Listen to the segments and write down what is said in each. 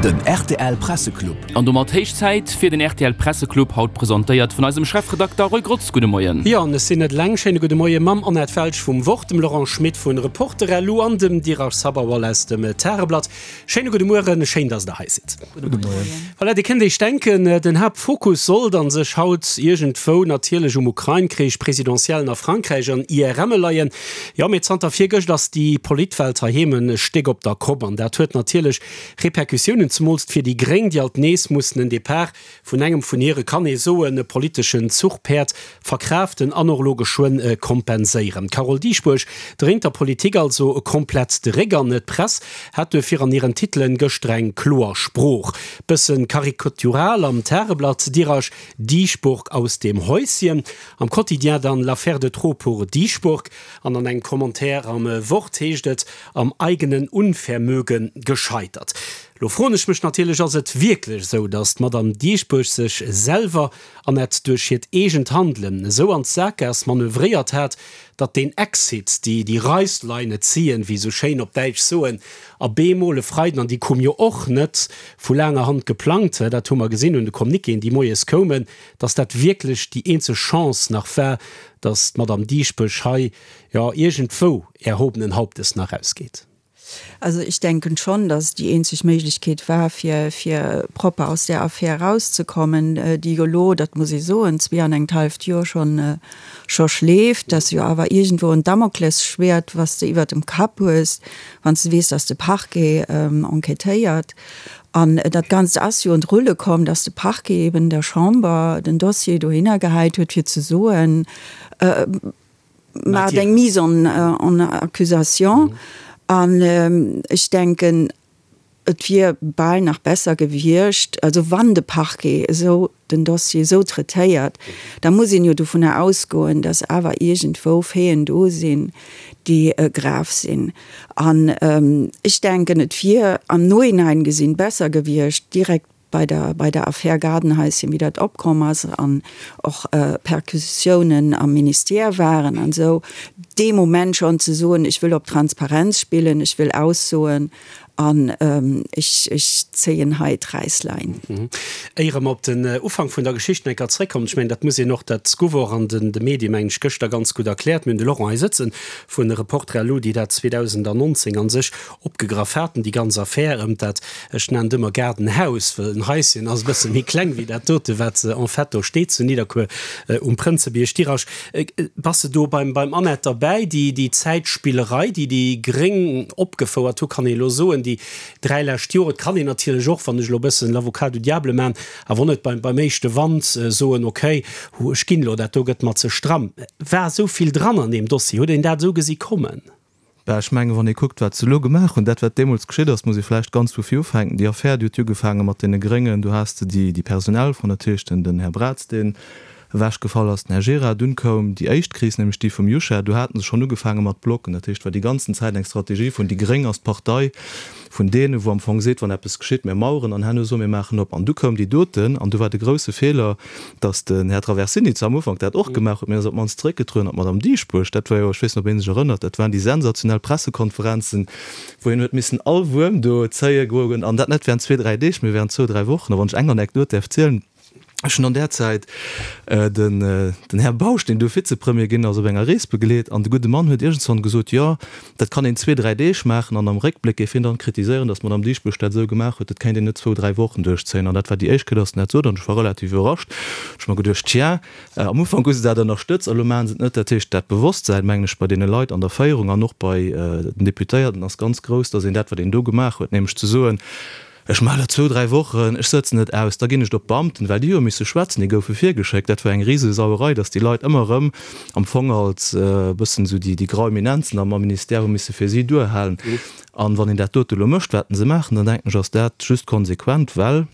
Den rtl Presseclub. An domat héich Zäit fir den rtl Presseclub, haut presentéiert vun eisem Chefredakter Roy Grotz. Gudde Moien. Jo, an ech sinn net eleng. Schéine gudde Moie mam Annette Welsch vum Wort, dem Laurent Schmit vun Reporter.lu an dem Dheeraj Sabharwal aus dem Tageblatt. Schéine gudde Mueren, schéin, dass der hei sidd. Gudde Moien. Voilà, Dir kënnt Iech denken, den Haaptfokus sollt a sech haut iergendwou natierlech um Ukrain-Krich, Presidentiellen a Frankräich an IRMe leien. Jo, mee zanter virgëscht ass déi Politwelt heiheem e Stéck op der Kopp an dat huet natierlech Repercussiounen, zemools fir déi Gréng, déi alt nees mussen en Depart vun engem vun hire, kann ee soen, politeschen Zuchpäerd verkraaften an och elo geschwënn kompenséieren. D'Carole Dieschbourg dréint der Politik also komplett de Réck an d'Press hat duerfir an hiren Titelen gëschter eng kloer Sprooch. Bëssen karikatural am Tageblatt, Dirasch Dieschbourg aus dem Häuschen, am Quotidien dann L'affaire de trop pour Dieschbourg an an engem Commentaire am Wort heescht et, Am eigenen Unvermögen gescheitert. Lo froen ech mech natierlech, ass et wierklech esou, datt d'Madame Dieschbourg sech selwer an et duerch hiert eegent Handelen esou an d'Sakgaass manövréiert hat, datt deen Exit, déi déi Reißleine ziehen, wéi esou schéin op Däitsch soen, a bemol e Freiden, an déi koum jo och net vu laanger Hand geplangt, dat hu mer gesinn un de Communiquéen, déi moies koumen, datt dat wierklech déi eenzeg Chance nach war, datt d'Madame Dieschbourg hei, jo, iergendwou erhobenen Hauptes nach rausgeet? Also ich denken schon, dass die eenzeg Méiglechkeet war, fir, fir propper aus där Affär erauszekommen, déi jo elo, dat muss ee soen, zwee an engt halleft Joer schonn, scho schleeft, dass jo awer iergendwou en Damoklesschwert, was de iwwert dem Kapp hues, wann s de weess, dass de Parquet enquêtéiert. An dat Ganzt ass jo un d'Rulle komm, dass de Parquet eben der Chamber den Dossier dohinner gehäit huet, fir ze soen, Maacht eng Mise en accusation. An ech denken, et wier bal nach besser gewiescht, also wann de Parquet esou den Dossier esou traitéiert, da muss een jo dovunner ausgoen, datt awer iergendwou Faiten do sinn, déi grav sinn. An ech denken, et wier am Nohinein gesinn besser gewiescht, direkt bei der, bei der Affär Gaardenhäuschen, wéi dat opkomm ass an och Perquisitiounen am Ministère waren an esou, dee Moment schonn ze soen, ech wëll op Transparenz spillen, ech wëll aussoen an ech, ech zéien hei d'Räisslein. Éier mer op den Ufank vun der Geschicht nach eng Kéier zréckkommen, ech mengen, dat muss een och, dat gouf och an den de Medie mengen ech gëschter ganz gutt erkläert, mir hunn de Laurent hei sëtzen vu Reporter.lu, déi dat 2019 a sech opgegraff haten, déi ganz Affär ëm dat, ech nennen et ëmmer Gaardenhaus, well en Haischen ass e bësse méi kleng wéi dat dote wat en fait do steet zu Nidderkuer um Prënzebierg. Dirasch, bass de do beim beim Annette derbäi? Déi déi Zäitspillerei, déi déi Gréng opgefouert hu, kann ee elo soen, déi 3 lescht Joer, et kann een natierlech och, wann ech elo e bëssen l'avocat du diable man, awer och net beim beim éischte Wand soen, okay, hu ech ginn elo, dat do gëtt mer ze stramm. War esou vill dran an deem Dossier? Huet een dat esou gesi kommen? Bah, ech mengen, wann ee kuckt, wat se elo gemaach hunn, dat wat deemools geschitt ass, muss ee vläicht ganz vu vir ufänken. Déi Affär, déi huet jo ugefaange mat deene Gréngen. Do has de déi, déi personell Fro natierlech, den, den Här Braz, deen ewechgefall ass, den Här Gira. Dunn koum déi éischt Kris, nämlech déi vum Juchat. Do hate se schonn ugefaange mat Blocken. Dat heescht, war déi ganzen Zäit eng Strategie vun, déi Gréng ass d'Partei vun deenen, wou am Fong seet, wann eppes geschitt, mir maueren an herno soe mir maachen op. An du koum déi doten, an du war de grouse Feeler, datt den Här Traversini zwar am Ufank dat och gemaach huet, mee ass op d'mannst zeréckgetrueden, an d'Madame Dieschbourg, dat war jo, ech weess net, ob ee sech erënnert, dat waren déi sensationell Pressekonferenzen, wou hien huet missen all Wuerm do zéie goen, an dat net während zwee, dräi Deeg, mee während zwou, dräi Wochen. A wann ech eng Anekdot däerf zielen, Ech hunn an där Zäit den den Här Bausch, deen du Vizepremier ginn ass, op enger Rees begleet an de gudde Mann huet iergendswann gesot, jo, dat kann een zwee, dräi Deeg maachen an am Réckbléck géif hien dann kritiséieren, datt d'Madame Dieschbourg dat esou gemaach huet, dat kéint een net zwou, dräi Wochen duerchzéien. An dat war déi éischt Kéier, datt en dat sot an ech war relativ iwwerrascht. Ech hu mer geduecht, tja, am Ufank hu se dat ënnerstëtzt a lo maache se et net. Dat heescht, dat Bewosstsäin, mengen ech, bei deene Leit an der Féierung an och bei den Deputéierten ass ganz grouss, datt een dat, wat een do gemaach huet, nämlech ze soen, Ech maachen dat zwou, dräi Wochen, ech sëtzen et aus, da ginn ech et op d'Beamten, well déi hu jo misse schwätzen, déi goufe virgeschéckt. Dat war eng Risesauerei, datt déi Leit ëmmer erëm am Fong als e bëssen esou déi grau Eminenzen am Ministère hu misse fir si duerhalen. An wann een dat dote elo mécht, wat se maachen, dann denken ech, ass dat just konsequent, well,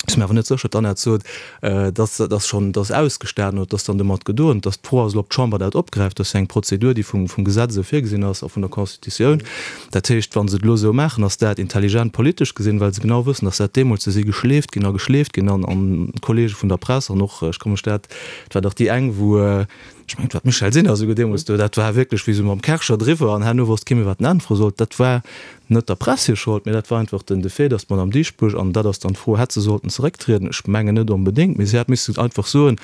ech si mir awer net sécher, d'Annette sot, datt dat schonn, datt ausgestanen oder datt dann domat gedoen, datt d'Fro ass elo, ob d'Chamber dat opgräift. Dat ass jo eng Prozedur, déi vum Gesetz esou virgesinn ass a vun der Constitutioun. Dat heescht, wa se et elo esou maachen, ass dat intelligent politesch gesinn, well se genau wëssen, datt dat deemools, do si geschleeft ginn a geschleeft ginn an d'Kollege vun der Press an och, ech ka mech dat, et war dach déi eng, wou. Ech mengen, et war d'Michèle Sinner esouguer deemools do, dat war wierklech wéi esou mam Kärcher driwwer an herno wosst kee méi, wat en äntwere sollt. Dat war net der Press hir Schold, mee dat war einfach den de Fait, datt d'Madame Dieschbourg, an dat ass dann d'Fro, hätt se sollten zerécktrieden? Ech mengen net onbedéngt, mee si hätt missen einfach soen,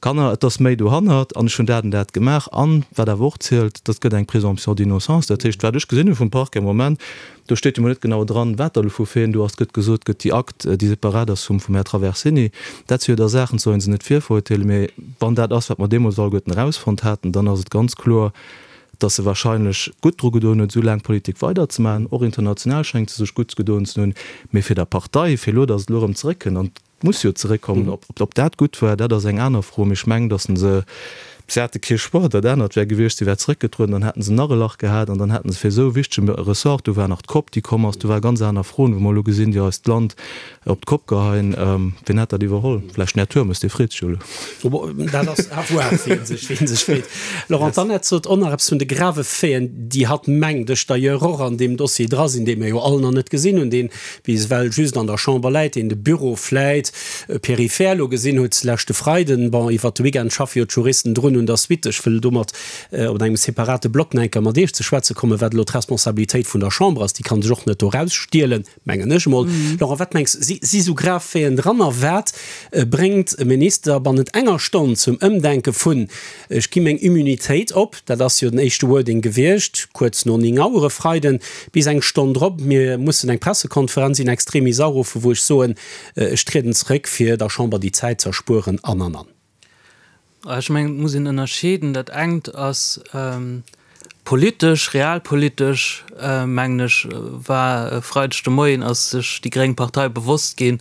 Kanner, et ass méi dohannert an ech hunn dat an dat gemaach. An, wat awer och zielt, dat gëtt eng Présomption d'innocence. Dat heescht, wat ech gesinn hu vum Parquet am Moment, do steet jo mol net genau dran, wat da elo vu Faiten do ass. Et gëtt gesot, gëtt déi Akt, déi separat ass vum vum Här Traversini. Dat si jo da Saachen, soll ee se net virverurteelen, mee wann dat ass, wat mer deemools alleguerten erausfonnt haten, dann ass et ganz kloer, dass se wahrscheinlech gutt dru gedoen huet, esou laang Politik weiderzemaachen. Och international schéngt se sech gutt gedoen ze hunn. Mee fir der Partei, fir elo, dass et elo erëm zeréckkënnt, an et muss jo zeréckkommen, ob dat gutt war, dat ass eng aner Fro. Mee ech mengen, dass se, se hate kee Choix, dat anert wär gewiescht, si wär zeréckgetrueden, dann hätte se nach e Lach gehat an dann hätte se fir esou e wichtege Ressort, do war nach d'Cop, déi komm ass, do ware ganz aner Froen, wou mer elo gesinn, déi eist Land Op d'Kopp geheien, wien hätt dat iwwerholl? Vläicht den Här Turmes, dee freet sech jo elo. Dat ass à voir, wien sech, wien sech freet. Laurent, d'Annette sot och nach eppes vun de grave Faiten, déi hatt mengt ech d'ailleurs och an deem Dossier dra sinn, dee mir jo all nach net gesinn hunn, deen bis ewell just an der Chamber läit, deen de Büro vläit peripher elo gesinn huet leschte Freiden. Bon, iwwert de Weekend schaffe jo d'Juristen drun un der Suite. Ech wëll domat op engem separate Block nach eng Kéier mat Iech ze schwätze kommen, wat elo d'Responsabilitéit vun der Chamber ass. Déi ka sech och net do erausstielen. Mengen ech emol. Laurent, wat mengs, si si sou grav Faiten dran? A wat bréngt e Minister bannent enger Stonn zum Ëmdenke vun ech gi meng Immunitéit op, dat ass jo den éischte Wording gewiescht, kuerz no 9 Auer e Freiden, bis eng Stonn drop, mir mussen eng Pressekonferenz in extremis aruffen, wou ech soen, ech trieden zeréck, fir der Chamber déi Zäit z'erspueren an, an, an. Ech mengen, et muss een ënnerscheeden. Dat engt ass politesch, realpolitesch, mengen ech, war e Freideg de Moien ass sech déi gréng Partei bewosst ginn,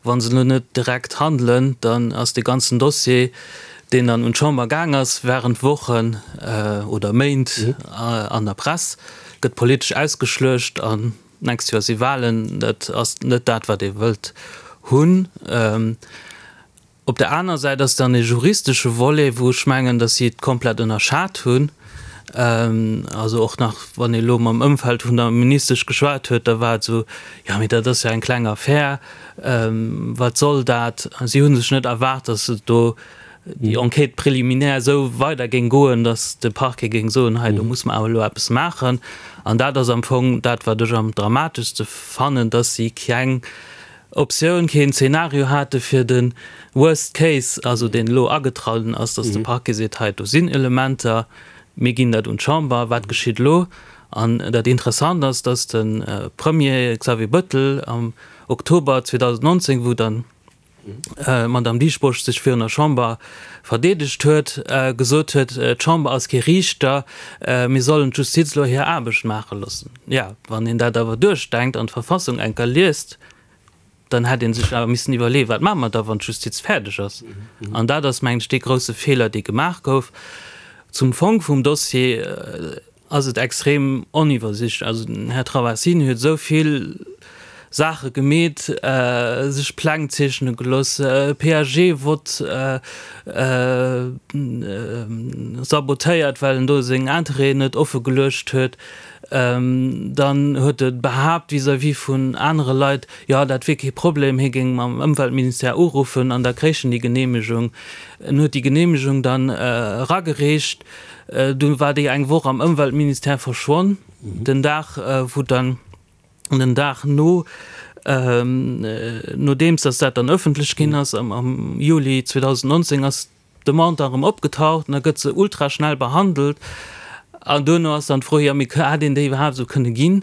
wa se elo net direkt handelen, dann ass dee ganzen Dossier, deen dann un d'Chamber gaang ass, während Wochen oder Méint an der Press, gëtt politesch ausgeschluecht an d'nächst Joer si Wahlen. Dat ass net dat, wat ee wëllt hunn. Op der aner Säit ass dann e juristesche Volet, wou ech mengen, datt si et komplett ënnerschat hunn. Also och nach, wann ee elo mam Ëmfeld vun der Ministesch geschwat huet, da war et esou, Jo, mee dat ass jo eng kleng Affär, wat soll dat? Si hu sech net erwaart, datt et do déi Enquête préliminaire esou weider géing goen, datt de Parquet géing soen, hei do muss mer awer elo eppes maachen. An dat ass am Fong dat, wat ech am dramateschste fannen, datt si keng Optioun keen Zeenario hate fir de Worst Case, also deen elo agetrallen ass, datt de Parquet seet, hei do sinn Elementer, mir ginn dat un d'Chamber, wat geschitt elo? An dat Interessant ass, datt de Premier Xavier Bettel am Oktober 2019, wou dann d'Madame Dieschbourg sech virun der Chamber verdeedegt huet, gesot huet, d'Chamber ass kee Riichter, mir sollen d'Justiz elo hir Aarbecht maache loossen. Jo, wann een dat awer duerchdenkt an d'Verfassung eng Kéier liest, dann hätt ee sech awer missen iwwerleeën, wat maache mer da, wann d'Justiz fäerdeg ass? An dat ass, mengen ech, dee grouse Feeler, dee gemaach gouf. Zum Fong vum Dossier ass et extrem oniwwersichtlech. Also den Här Traversini huet esou vill Saache gemeet, sech Pläng zeechne gelooss, PAG-Vott sabotéiert, well en do seng Interêten net offe geluecht huet. Dann huet e behaapt vis-à-vis vun anere Leit, jo dat wier kee Problem, hie géing mam Ëmweltministère uruffen an da kréich en déi Geneemegung. En huet déi Geneemegung dann eragereecht, du war déi eng Woch am Ëmweltministère verschwonn. Den Dag wou dann, den Dag no, nodeems datt dat dann ëffentlech ginn ass, am Juli 2019, ass D'Demande da rëm opgetaucht an da gëtt se ultra schnell behandelt. An duerno ass dann d'Fro, jo mee hätt een déi iwwerhaapt esou kënne ginn?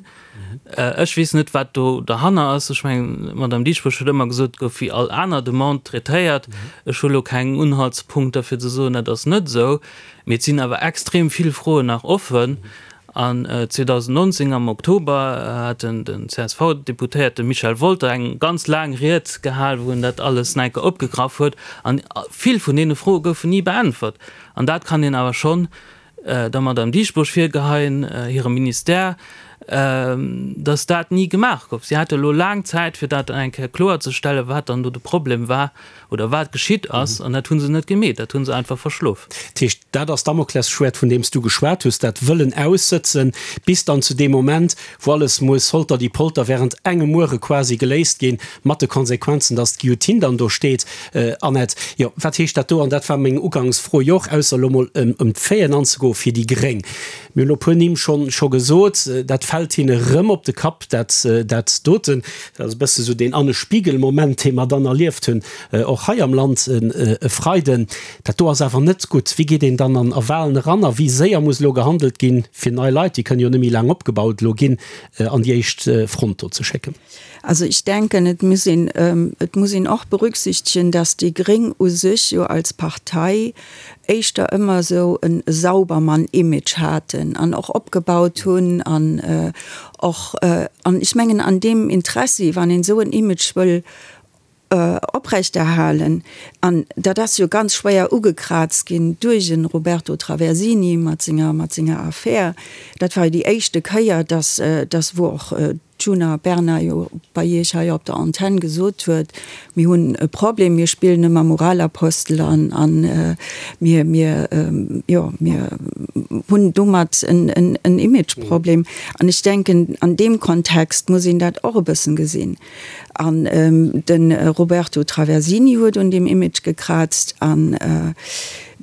Ech weess net, wat do derhanner ass. Ech mengen, d'Madame Dieschbourg huet ëmmer gesot, et gouf wéi all aner Demande traitéiert. Ech hu lo keng Unhaltspunkter fir ze soen, dat ass net esou. Mee et sinn awer extrem vill Froen nach offen. An 2019 am Oktober hat den CSV-Deputéierte Michel Wolter eng ganz laang Ried gehal, wou en dat alles nach eng Kéier opgegraff huet. An vill vun deene Froe goufen ni beäntwert. An dat kann een awer schonn der Madame Dieschbourg virgeheien, hirem Ministère. Datt dat ni gemaach gouf. Si hate elo laang Zäit, fir dat eng Kéier kloerzestellen, wat dann do de Problem war oder wat geschitt ass, an dat hu se net gemeet. Dat hu se einfach verschlof. Dat heescht, dat ass d'Damoklesschwäert, vun deem s du geschwat hues, dat wëllen aussëtzen, bis dann zu deem Moment, wou alles muss holter die Polter während engem Muere quasi geléist ginn, mat de Konsequenzen, datt d'Guillotine dann do steet. Annette, jo, wat heescht dat do? An dat war meng Ugangsfro jo och, ausser elo mol ëm d'Faiten anzegoen, fir déi Gréng. Mir hunn elo puer Nimm schonn scho gesot, dat fält hinne rëm op de Kapp, dat dat doten. Dat ass e bësse sou deen Anne Spiegel-Moment, dee mer dann erlieft hunn, och hei am Land e Freiden. Dat do ass awer net gutt. Wéi geet een dann an a Walen eran a wéi séier muss elo gehandelt ginn, fir nei Leit, déi kënnen jo net méi laang opgebaut elo ginn, an déi éischt Front do ze schécken? Also ich denken, et muss een, et muss een och berücksichtigen, dass déi Gréng u sech jo als Partei éischter ëmmer esou e Saubermann-Image haten an och opgebaut hunn an och, an ech mengen an deem Interessi, wann een esou en Image wëll oprechterhalen, an dat ass jo ganz schwéier ugekraazt ginn duerch e Roberto Traversini mat senger, mat senger Affär, dat war jo déi éischte Kéier, dass, dass wou och d'Djuna Bernard jo bei Iech hei op der Antenn gesot huet, mir hunn e Problem, mir spillen ëmmer Moralapostel an a mir, mir, jo, mir hunn domat en Imageproblem. An ech denken, an deem Kontext muss een dat och e bëssen gesinn. An de Roberto Traversini huet un deem Image gekraazt an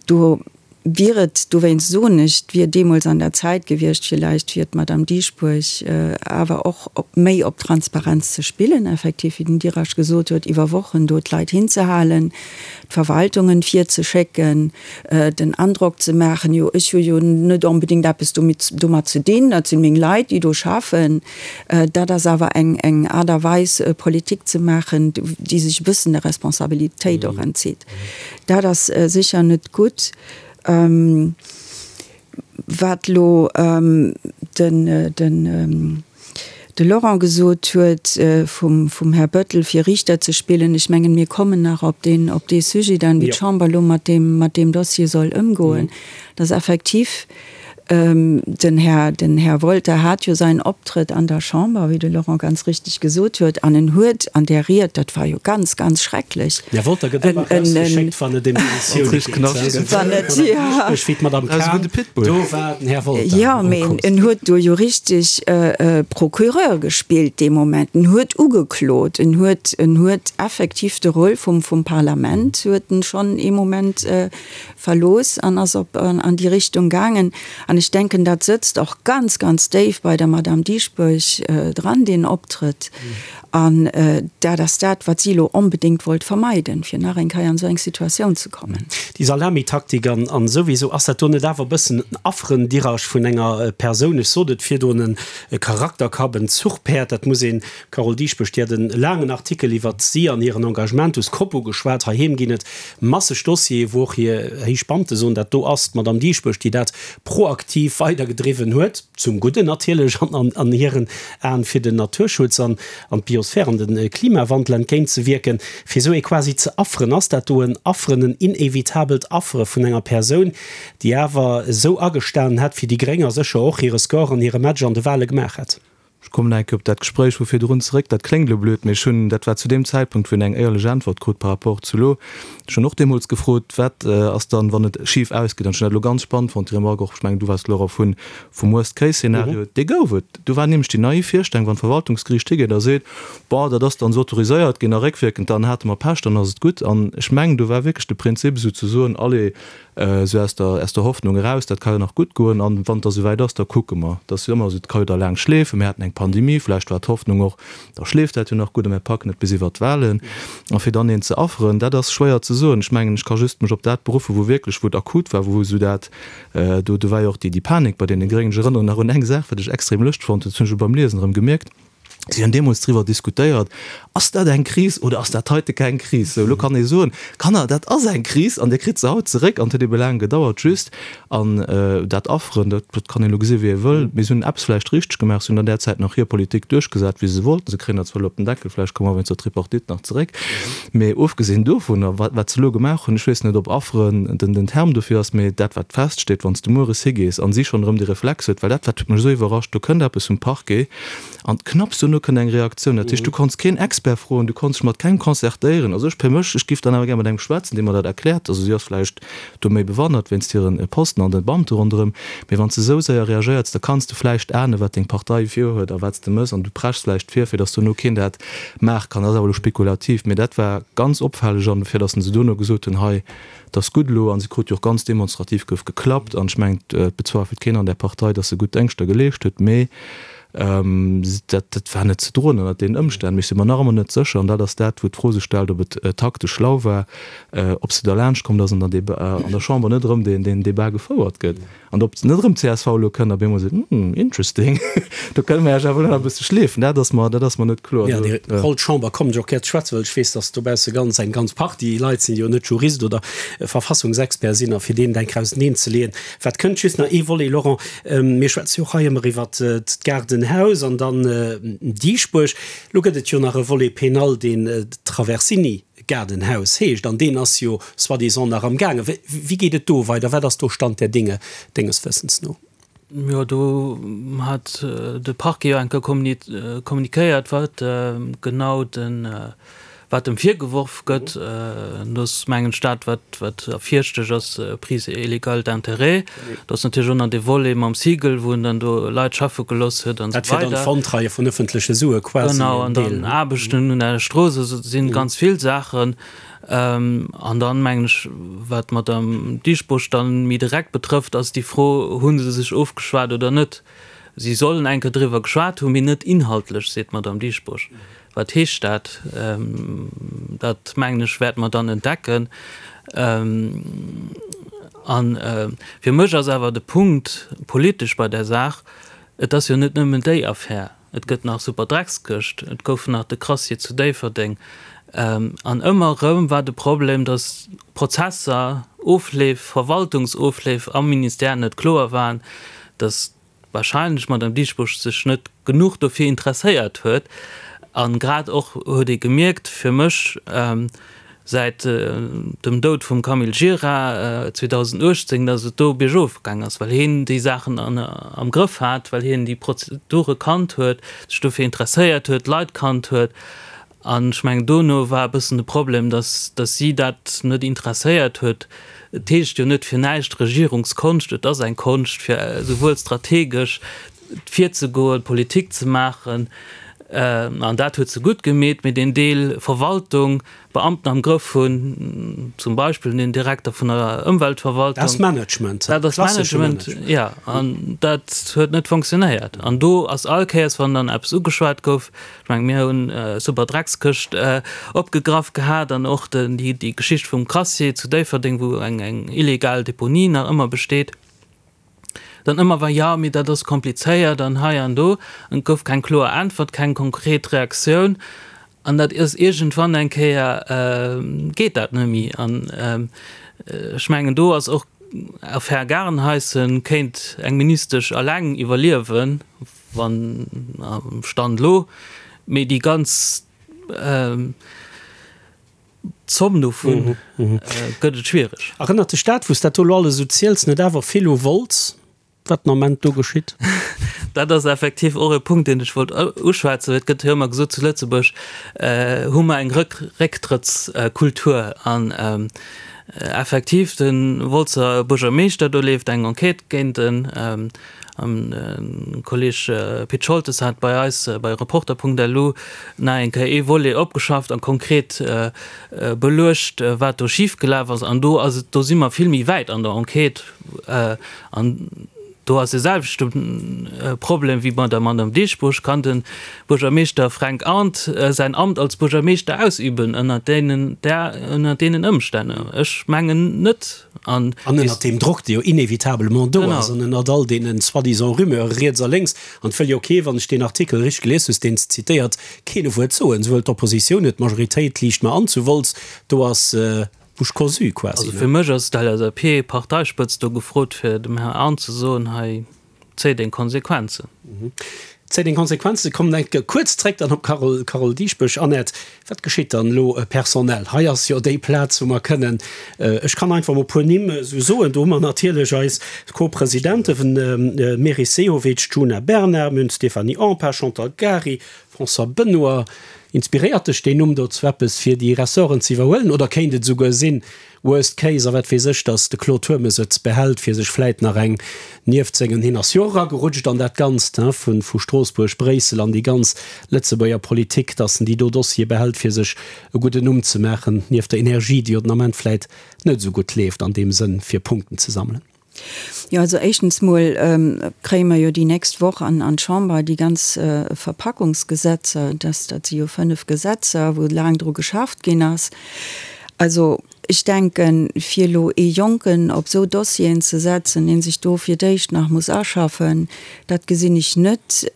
do wier et, dowéinst soen ech, et wier deemools an der Zäit gewiescht villäicht fir d'Madame Dieschbourg awer och méi op Transparenz ze spillen, effektiv, wéi den Dirasch gesot huet, iwwer Wochen do d'Leit hinzehalen, d'Verwaltungen virzeschécken, den Androck ze maachen, jo ech hu jo net onbedéngt eppes domat ze dinn, dat sinn meng Leit, déi do schaffen. Dat ass awer eng Aart a Weis Politik ze maachen, déi sech e bëssen der Responsabilitéit och entzitt. Dat ass sécher net gutt. Wat elo den de Laurent gesot huet vum Här Bettel, fir Riichter ze spillen, ech mengen, mir kommen nach op deen, op dee Sujet dann, wéi d'Chamber elo mat deem, mat deem Dossier soll ëmgoen. Dass effektiv den Här, den Här Wolter hat jo säin Optrëtt an der Chamber, wéi de Laurent ganz richtig gesot huet, an en huet an där Ried, dat war jo ganz, ganz schrecklech, Den Här Wolter gëtt ëmmer erausgeschéckt, wann et ëm Demissioune geet. Wann et, jo. Wéi d'Madame Cahen, do war den Här Wolter. Jo, mee en huet do jo richtig Procureur gespillt dee Moment. En huet ugeklot, en huet, en huet effektiv de Rôle vum, vum Parlament huet en schonn ee Moment verlooss an ass op an déi Richtung gaangen. An ech denken, dat sëtzt och ganz, ganz déif bei der Madame Dieschbourg dran, deen Optrëtt. An dat ass dat, wat si elo onbedéngt wollt vermeiden, fir nach eng Kéier an esou eng Situatioun ze kommen. Déi Salamitaktik an souwisou, ass dat do net awer e bëssen en Afferen-Dirage vun enger Persoun? Ech sot et virdrun, e Charakterkapp, en Zuchpäerd, dat muss een, D'Carole Dieschbourg, déi hat e laangen Artikel iwwert si an hiren Engagement us Coppo geschwat. Heiheem ginn et masseg Dossiere wou och hir héich Beamte soen, dat do ass d'Madame Dieschbourg, déi dat proaktiv weidergedriwwen huet, zum Gudden natierlech an an hiren Aen, fir den Naturschutz an an d'Biosphär an de Klimawandel entgéintzewierken. Fir esou ee quasi ze afferen, ass dat do en Afferen, en inevitabelt Affere vun enger Persoun, déi awer esou agestanen hätt fir déi Gréng a sécher och hire Score an hire Match an de Wahle gemaach hätt? Ech kommen nach eng Kéier op dat Gespréich vu virdrun zeréck. Dat kléngt elo blöd, mee ech hunn, dat war zu deem Zäitpunkt, wou een eng éierlech Äntwert krut par rapport zu elo, ech hunn och deemools gefrot, wat ass dann, wann et schif ausgeet? An ech hunn dat elo ganz spannend fonnt, déi Remarque och, ech mengen, du waars et, Laurent, vun, vum Worst-Case-Szenario. Dee gouf et. Do war nämlech déi naiv Virstellung, wann d'Verwaltungsgeriicht higeet a seet, Bon, dat ass dann esou autoriséiert ginn a réckwierkend, dann hate mer Pech, dann ass et gutt. An ech mengen, do war wierklech de Prinzip esouzesoen, allez, Esou aus der, aus der Hoffnung eraus, dat ka jo nach gutt goen an wann et da souwäit ass, da kucke mer. Et ass jo ëmmer esou, et ka jo da laang schleefen. Mir haten eng Pandemie, vläicht war d'Hoffnung och, da schleeft dat jo nach gutt a mir packen et bis iwwert d'Wahlen. A fir dann een ze afferen, dat ass schwéier ze soen. Ech mengen, ech ka just mech op dat beruffen, wou wierklech, wou et akut war, wou esou dat, do, do war jo och déi, déi Panik bei deene Gréngen. Ech erënneren nach un eng Saach, wat ech extrem lëscht fonnt hunn, dat hunn ech elo beim Liesen erëm gemierkt. Si hunn deemools driwwer diskutéiert, Ass dat eng Kris oder ass dat heite keng Kris? Sou, elo kann ee soen, Kanner, dat ass eng Kris an Dir kritt se haut zeréck. An et huet ebe laang gedauert. Just, an dat Afferen, dat kann een elo gesi wéi ee wëll, mee se hunn eppes vläicht richteg gemaach, se hunn an där Zäit nach hir Politik duerchgesat, wéi se se wollten. Se kréien dat zwar elo op den Deckel, vläicht komme mer wéinst der Tripartite nach zeréck, mee ofgesinn dovunner, wat wat se elo gemaach hunn, ech weess net, ob Afferen den den Term dofir ass, mee dat wat feststeet, wann s de mueres higees an si schonn erëm de Reflex huet, well dat wat huet mech esou iwwerrascht, do kënnt eppes vum Parquet, An knapps duerno kënnt eng Reaktioun. Dat heescht, du konns keen Expert froen, du konns dech mat kengem concertéieren. Also ech fir mech, ech giff dann awer gär mat engem schwätzen, dee mer dat erkläert. Also si ass vläicht do méi bewandert wéinst hiren Posten an de Beamte ronderëm. Mee wann s de esou séier reagéierts, da kanns de vläicht ahnen, wat deng Partei virhuet a wat s de mëss an du preschs vläicht vir, fir datt duerno keen dat maache kann. Dat ass awer elo spekulativ. Mee dat war ganz opfälleg an fir datt se duerno gesot hunn, hei, 't ass gutt elo, an se krut jo och ganz demonstrativ gouf geklappt, an ech mengen, et bezweifelt keen an där Partei, datt se gutt Déngschter geleescht huet, mee dat dat war net ze droen ënnert deenen Ëmstänn. Mee ech si mer nach ëmmer net sécher, an dat ass dat, wou d'Fro sech stellt, ob et taktesch schlau war, ob se derlaanscht kommt ass an der an der Chamber net erëm deen deen Débat gefouert gëtt. An ob net erëm csv elo kënnt a bemol seet, Hm, interesting, do kënne mer Iech awer elo nach e bësse schleefen. Dat ass mer, dat ass mer net kloer. Jo, déi Roll Chamber kommen ech och gär ze schwätzen, well ech weess, datt dobausse ganz eng ganz Partie Leit sinn, déi jo net Jurist oder Verfassungsexpert sinn a fir deenen eng Kéier auseneen ze leeën, wat kënnt. Just nach ee Volet, Laurent, mir schwätze jo och hei ëmmer iwwert d'Gaardenhaus an dann Dieschbourg. Elo gëtt et jo nach e Volet pénal, deen Traversini Gaardenhaus heescht, an deen ass jo soi-disant nach am gaangen. Wéi geet et do weider? Wat ass do Stand der Dinge denges Wëssens no? Jo, do hat de Parquet jo eng Kéier kommuniquéiert, wat genau den, wat em virgeworf gëtt. Do ass, mengen ech, dat, wat, wat ervirstech ass, Prise illégale d'intérêts. Do ass natierlech och nach dee Volet mam Siegel, wou en dann do Leit schaffe gelooss huet an esou weider. Dat fir dann d'Verontreie vun ëffentleche Sue quasi. Genau, an dann Aarbechten un der Strooss, also et si ganz vill Saachen. An dann, mengen ech, wat d'Madame Dieschbourg dann méi direkt betrëfft, ass déi Fro, Hu se sech ofgeschwat oder net? Si sollen eng Kéier driwwer geschwat hunn, mee net inhaltlech, seet d'Madame Dieschbourg. Wat heescht dat? Dat, mengen ech, wäerte mer dann entdecken. A fir mech ass awer de Punkt politesch bei där Saach, Et ass jo net nëmmen déi Affär. Et gëtt nach Superdreckskëscht, et gouf nach de Crassier zu Déifferdeng. An ëmmer erëm war de Problem, datt Prozesser, Ofleef, Verwaltungsofleef am Ministère net kloer waren, datt wahrscheinlech d'Madame Dieschbourg sech net genuch dofir interesséiert huet an grad och huet ee gemierkt, fir mech, säit dem Doud vum Camille Gira 2018, datt et do biergof gaang ass, well hien déi Saachen am Grëff hat, well hien déi Prozedure kannt huet, sech dofir interesséiert huet, d'Leit kannt huet. An ech mengen, dono war e bëssen de Problem, dass, dass si dat net interesséiert huet. Et heescht jo net fir näischt Regierungskonscht. Et ass eng Konscht, fir esouwuel strategesch virzegoen, Politik ze maachen, an dat huet se gutt gemeet, mee deen Deel Verwaltung, Beamten am Grëff hunn, zum Beispill den Direkter vun der Ëmweltverwaltung. Dat ass Management, dat ass Management, jo, an dat huet net fonctionnéiert. An do ass all Kéiers, wann dann eppes ugeschwat gouf, ech mengen, mir hunn super Dreckskëscht opgegraff gehat an och déi Geschicht vum Crassier zu Déifferdeng, wou eng illegal Deponie nach ëmmer besteet. Dann ëmmer war, jo, mee dat ass komplizéiert an hei an do. An et gouf keng kloer Äntwert, keng konkret Reaktioun. An dat ass iergendwann eng Kéier, geet dat net méi. An ech mengen, do ass och Affär Garenheisen, kéint eng Ministesch eleng iwwerliewen, wann, Stand elo, mee déi ganz, D'Zomm dovun gëtt et schwiereg. Erënnert dech dat, wou s dat do elo alles esou ziels, net awer vill u Wolz, wat den Ament do geschitt? Dat ass effektiv och e Punkt, deen ech wollt uschwätzen. Et gëtt jo ëmmer gesot, zu Lëtzebuerg hu mer eng Récktrëttskultur. An effektiv, de Wolzer Buergermeeschter, do leeft eng Enquête géint en. An de Kolleg Pit Scholtes hat bei eis bei Reporter.lu nach eng Kéier ee Volet opgeschafft a konkret beluecht, wat do schifgelaf ass. An do ass et, do si mer vill méi wäit an der Enquête. An. Do ass e selwechte Problem wéi bei der Madame Dieschbourg, Kann de Buergermeeschter Fränk Arndt säin Amt als Buergermeeschter ausüben ënner deenen, ënner deenen Ëmstänn? Ech mengen net. An ënnert deem Drock, dee jo inévitablement do ass, an ënnert all deene soi-disant Rumeure riets a lénks, an et wëll jo kee, wann ech deen Artikel richteg gelies hues, deen s de zitéiert, keen e Wuert soen, souwuel d'Oppositioun net, d'Majoritéit liicht mer an zu Wolz, do ass Bouche cousue quasi. Also fir mech ass d'LSAP-Parteispëtzt do gefrot, fir dem Här Arndt ze soen, hei, Zéi deng Konsequenzen. Zéi deng Konsequenzen. Kommen eng Kéier kuerz zréck dann op d'Carole, Carole Dieschbourg. Annette, wat geschitt dann elo personell? Hei ass jo déi Plaz, wou mer kënnen, ech kann einfach mol e puer Nimm esou soen, do hu mer natierlech eis Co-Presidenten, Meris Sehovic, Djuna Bernard, mir hunn d'Stéphanie Empain, Chantal Gary, François Benoy. Inspiréiert dech deen Numm dozou eppes, fir déi Ressorten ze iwwerhuelen oder kéint et esouguer sinn, Worst case, a wat weess ech, datt de Claude Turmes et behält, fir sech vläit nach eng nieft sengen, hien ass jo och eragerutscht an dat Ganzt, hein, vu vu Stroossbuerg, Bréissel an déi ganz Lëtzebuerger Politik, datt en déi do Dossiere behält, fir sech e gudden Numm ze maachen, nieft der Energie, déi jo den Ament vläit net esou gutt leeft an deem Sënn, fir Punkten ze sammelen. Jo, also éischtens mol kréie mer jo déi nächst Woch an an d'Chamber déi ganz Verpackungsgesetzer. Dat dat si jo 5 Gesetzer, wou laang dru geschafft ginn ass. Also ech denken, fir elo ee Jonken op esou Dossieren ze setzen, dee sech do fir d'éischt nach muss aschaffen, dat gesinn ech net.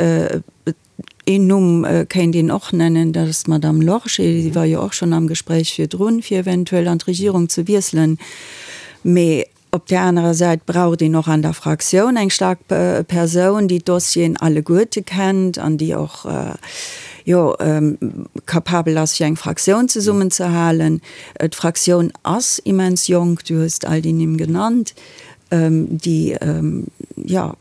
Een Numm kéint een och nennen, dat ass d'Madame Lorgé. Si war jo och schonn am Gespréich virdrun, fir eventuell an d'Regierung ze wiesselen. Mee Op där anerer Säit braucht een och an der Fraktioun eng staark Persoun, déi d'Dossieren alleguerte kennt an déi och, jo, capabel ass, fir eng Fraktioun zesummenzehalen. D'Fraktioun ass immens jonk, du hues all déi Nimm genannt, déi, jo,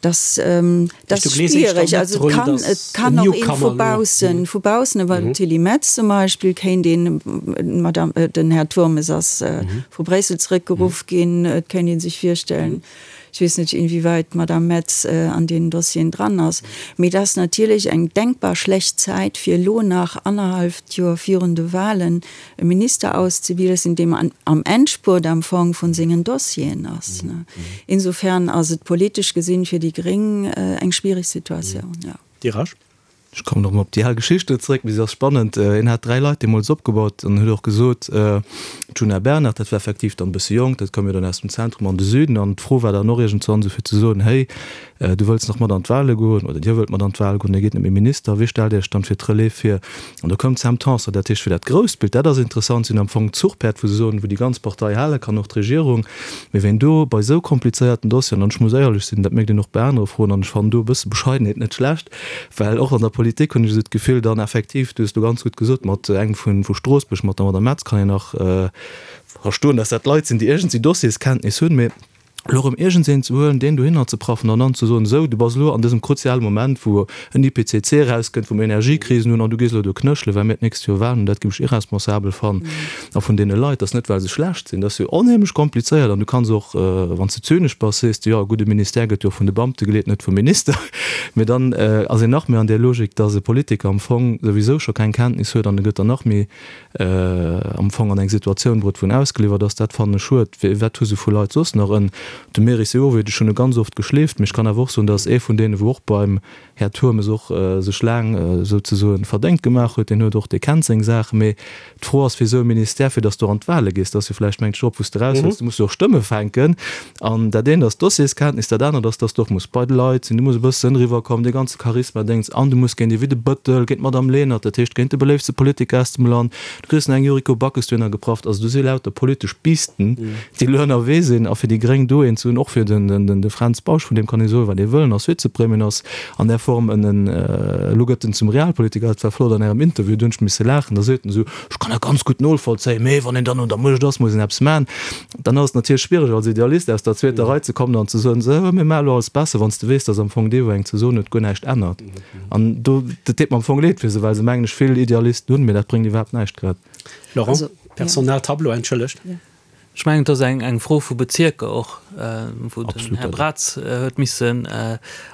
Dass, dat ass schwierig. Also et kann, et kann och een vu baussen, vu baussen, ewell den Tilly Metz zum Beispill kéint een, d'Madame, den Här Turmes ass vu Bréissel zeréckgeruff ginn, et kéint ee sech virstellen, ech weess net inwieweit d'Madame Metz an deenen Dossieren dran ass, mee dat ass natierlech eng denkbar schlecht Zäit fir elo nach annerhalleft Joer virun de Wahlen e Minister auszewielen, deem am Endspurt am Fong vun sengen Dossieren ass. Insofern ass et politesch gesinn fir déi Gréng eng schwierig Situatioun, jo. Dir Rasch? Ech kommen erëm op déi al Geschicht do zeréck, mee se ass spannend. Hien hat 3 Leit deemools opgebaut an huet och gesot, d'Djuna Bernard, dat war effektiv dann e bësse jonk, dat koum jo dann aus dem Zentrum an de Süden an d'Fro war dann och iergendzwann esou fir ze soen, héi, Du wëlls nach mat an d'Wahle goen, oder Dir wëllt mat an d'Wahl goen, Dir gitt net méi Minister, wee stellt Iech dann fir d'Relève vir? An do koum d'Sam Tanson. Dat heescht, fir dat grousst Bild, dat ass interessant, si hunn am Fong d'Zuchpäerd, wou se soen, wou déi ganz Partei hale kann, och d'Regierung. Mee ween do bei esou komplizéierten Dossieren, an ech muss éierlech sinn, dat mécht een och bei anere Froen, an ech fannen do e bësse Bescheidenheet net schlecht, well och an der Politik hunn ech esou d'Gefill, dann effektiv, du hues elo ganz gutt gesot, mat engem vu Stroossbuerg, mat der Madame Metz kann een nach verstoen, dass dat Leit sinn, déi iergendwéi Dossierskenntnis hunn, mee elo erëm iergendseen ze huelen, deen dohinner ze praffen an dann ze soen, esou, du bass elo an dësem kruziale Moment, wou en IPCC erauskënnt, wou mer Energiekrisen hunn an du gees elo do knéchelen, well mir d'nächst Joer Wahlen hunn, dat géif ech irresponsabel fannen. A vun deene Leit, dat ass net, well se schlecht sinn, dat ass jo onheemlech komplizéiert an du kanns och, wann s de zynesch bass, sees de, jo, e gudde Ministère gëtt jo och vun de Beamte geleet, net vum Minister. Mee dann ass een nach méi an där Logik, dass e Politiker am Fong souwisou scho keng Kenntnis huet an e gëtt dann nach méi am Fong an eng Situatioun bruet, wou en ausgeliwwert ass, dat fannen ech schued. Wat hu se vu Leit soss nach? En, de Meris Sehovic, ech hunn e ganz oft geschleeft, mee ech kann awer och soen, dat ass ee vun deenen, wou och beim Här Turmes och sech laang souzesoen verdéngt gemaach huet. Deen huet och, dee kennt seng Saachen. Mee d'Fro ass fir esou e Ministère, fir datt s du an d'Wahle gees, dat ass jo vläicht, mengt ech, och, wou s de eraus wëlls, du muss jo och Stëmme fänken. An dat eent ass d'Dossierskenntnis, dat anert ass, dass du och muss bei de Leit sinn, du muss e bëssen eriwwerkommen, dee ganze Charisma-Déngs, an du muss géint ee wéi de Bëttel, géint d'Madame Lenert, dat heescht géint de beléiftste Politiker aus dem Land, du kriss nach eng Yuriko Backes dohinner geprafft. Also do si lauter politesch Bisten, déi elo ënnerwee sinn. A fir déi Gréng do een ze hunn, och fir de Fränz Bausch, vun deem kann ee soen, wat ee wëll, en ass Vizepremier, en ass an där Form en, en, elo gëtt en zum Realpolitiker, dat war flott an Ärem Interview, do hunn ech misse laachen, da seet en esou, ech kann dat ganz gutt nolvollzéien, mee wann een dann un der Muecht ass, muss een eppes maachen. Dann ass et natierlech schwiereg als Idealist aus der zweeter Rei ze kommen an ze soen, sou, mir maache lo alles besser, wann s de weess, datt am Fong dee wou eng ze soen huet, guer näischt ännert. An do, dat deet mer am Fong leed fir se, well se mengen ech vill Idealisten hunn, mee dat bréngt iwwerhaapt näischt grad. Laurent, Personaltableau, entschëllegt. Ech mengen, et ass eng Fro vu Bezierker och, wou den Här Braz huet missen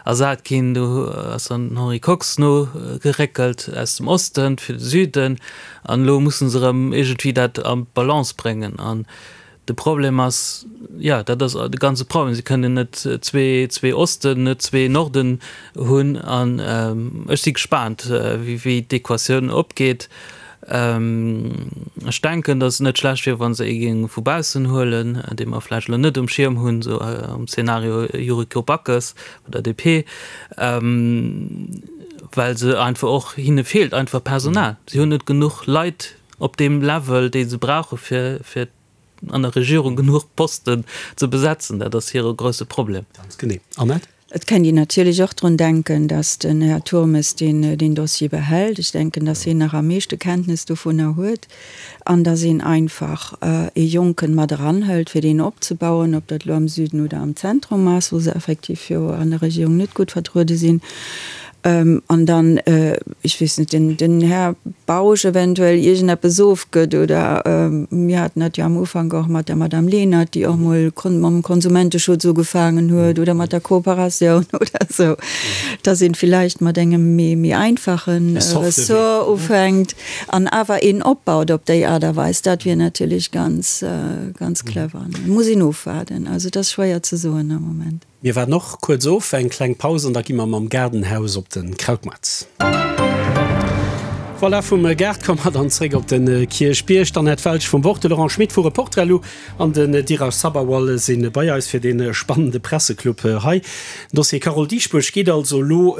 ersat ginn. Do ass dann den Henri Kox nogeréckelt aus dem Osten fir de Süden. An elo musse se erëm iergendwéi dat an d'Balance bréngen. An. De Problem ass, jo, dat ass de ganze Problem, si kënnen net zwee Osten, net zwee Norden hunn. An ech si gespaant, wéi d'Equatioun opgeet. Ech denken, datt et net schlecht wier, wa se ee géinge vu baussen huelen, dee mer vläicht elo net um Schierm hunn, esou am Zeenario Yuriko Backes vun der DP, well se einfach och, hinne feelt einfach Personal. Si hunn net genuch Leit op deem Level, dee se brauche fir, fir an der Regierung genuch Posten ze besetzen. Dat ass hire grousse Problem. Ganz genee. Annette? Et kennt een natierlech och drun denken, datt den Här Turmes deen, deen Dossier behält. Ech denken, datt hien nach am meeschte Kenntnes dovunner huet an datt een einfach ee Jonken mat eranhëlt, fir deen opzebauen, ob dat elo am Süden oder am Zentrum ass, wou se effektiv jo an der Regierung net gutt vertruede sinn. An dann, ech weess net, den, den Här Bausch eventuell iergendeppes ofgëtt oder mir haten dat jo am Ufank och mat der Madame Lenert, déi och mol mam Konsumenteschutz ugefaangen huet oder mat der Kooperatioun oder esou, dass een villäicht mat engem méi, méi einfache Ressort ufänkt an awer een opbaut op déi Aart a Weis. Dat wier natierlech ganz, ganz clever. Muss een ofwaarden. Also et ass schwéier ze soen am Moment. Mir waarden och kuerz of, eng kleng Paus an da gi mer mam Gaardenhaus op de Krautmaart. Voilà, vum Gaart komme mer dann zréck op de Kierchbierg. D'Annette Welsch vum Wort, de Laurent Schmit vu Reporter.lu an den Dheeraj Sabharwal si bei eis fir dee spannende Presseclub hei. Den Dossier Carole Dieschbourg geet also elo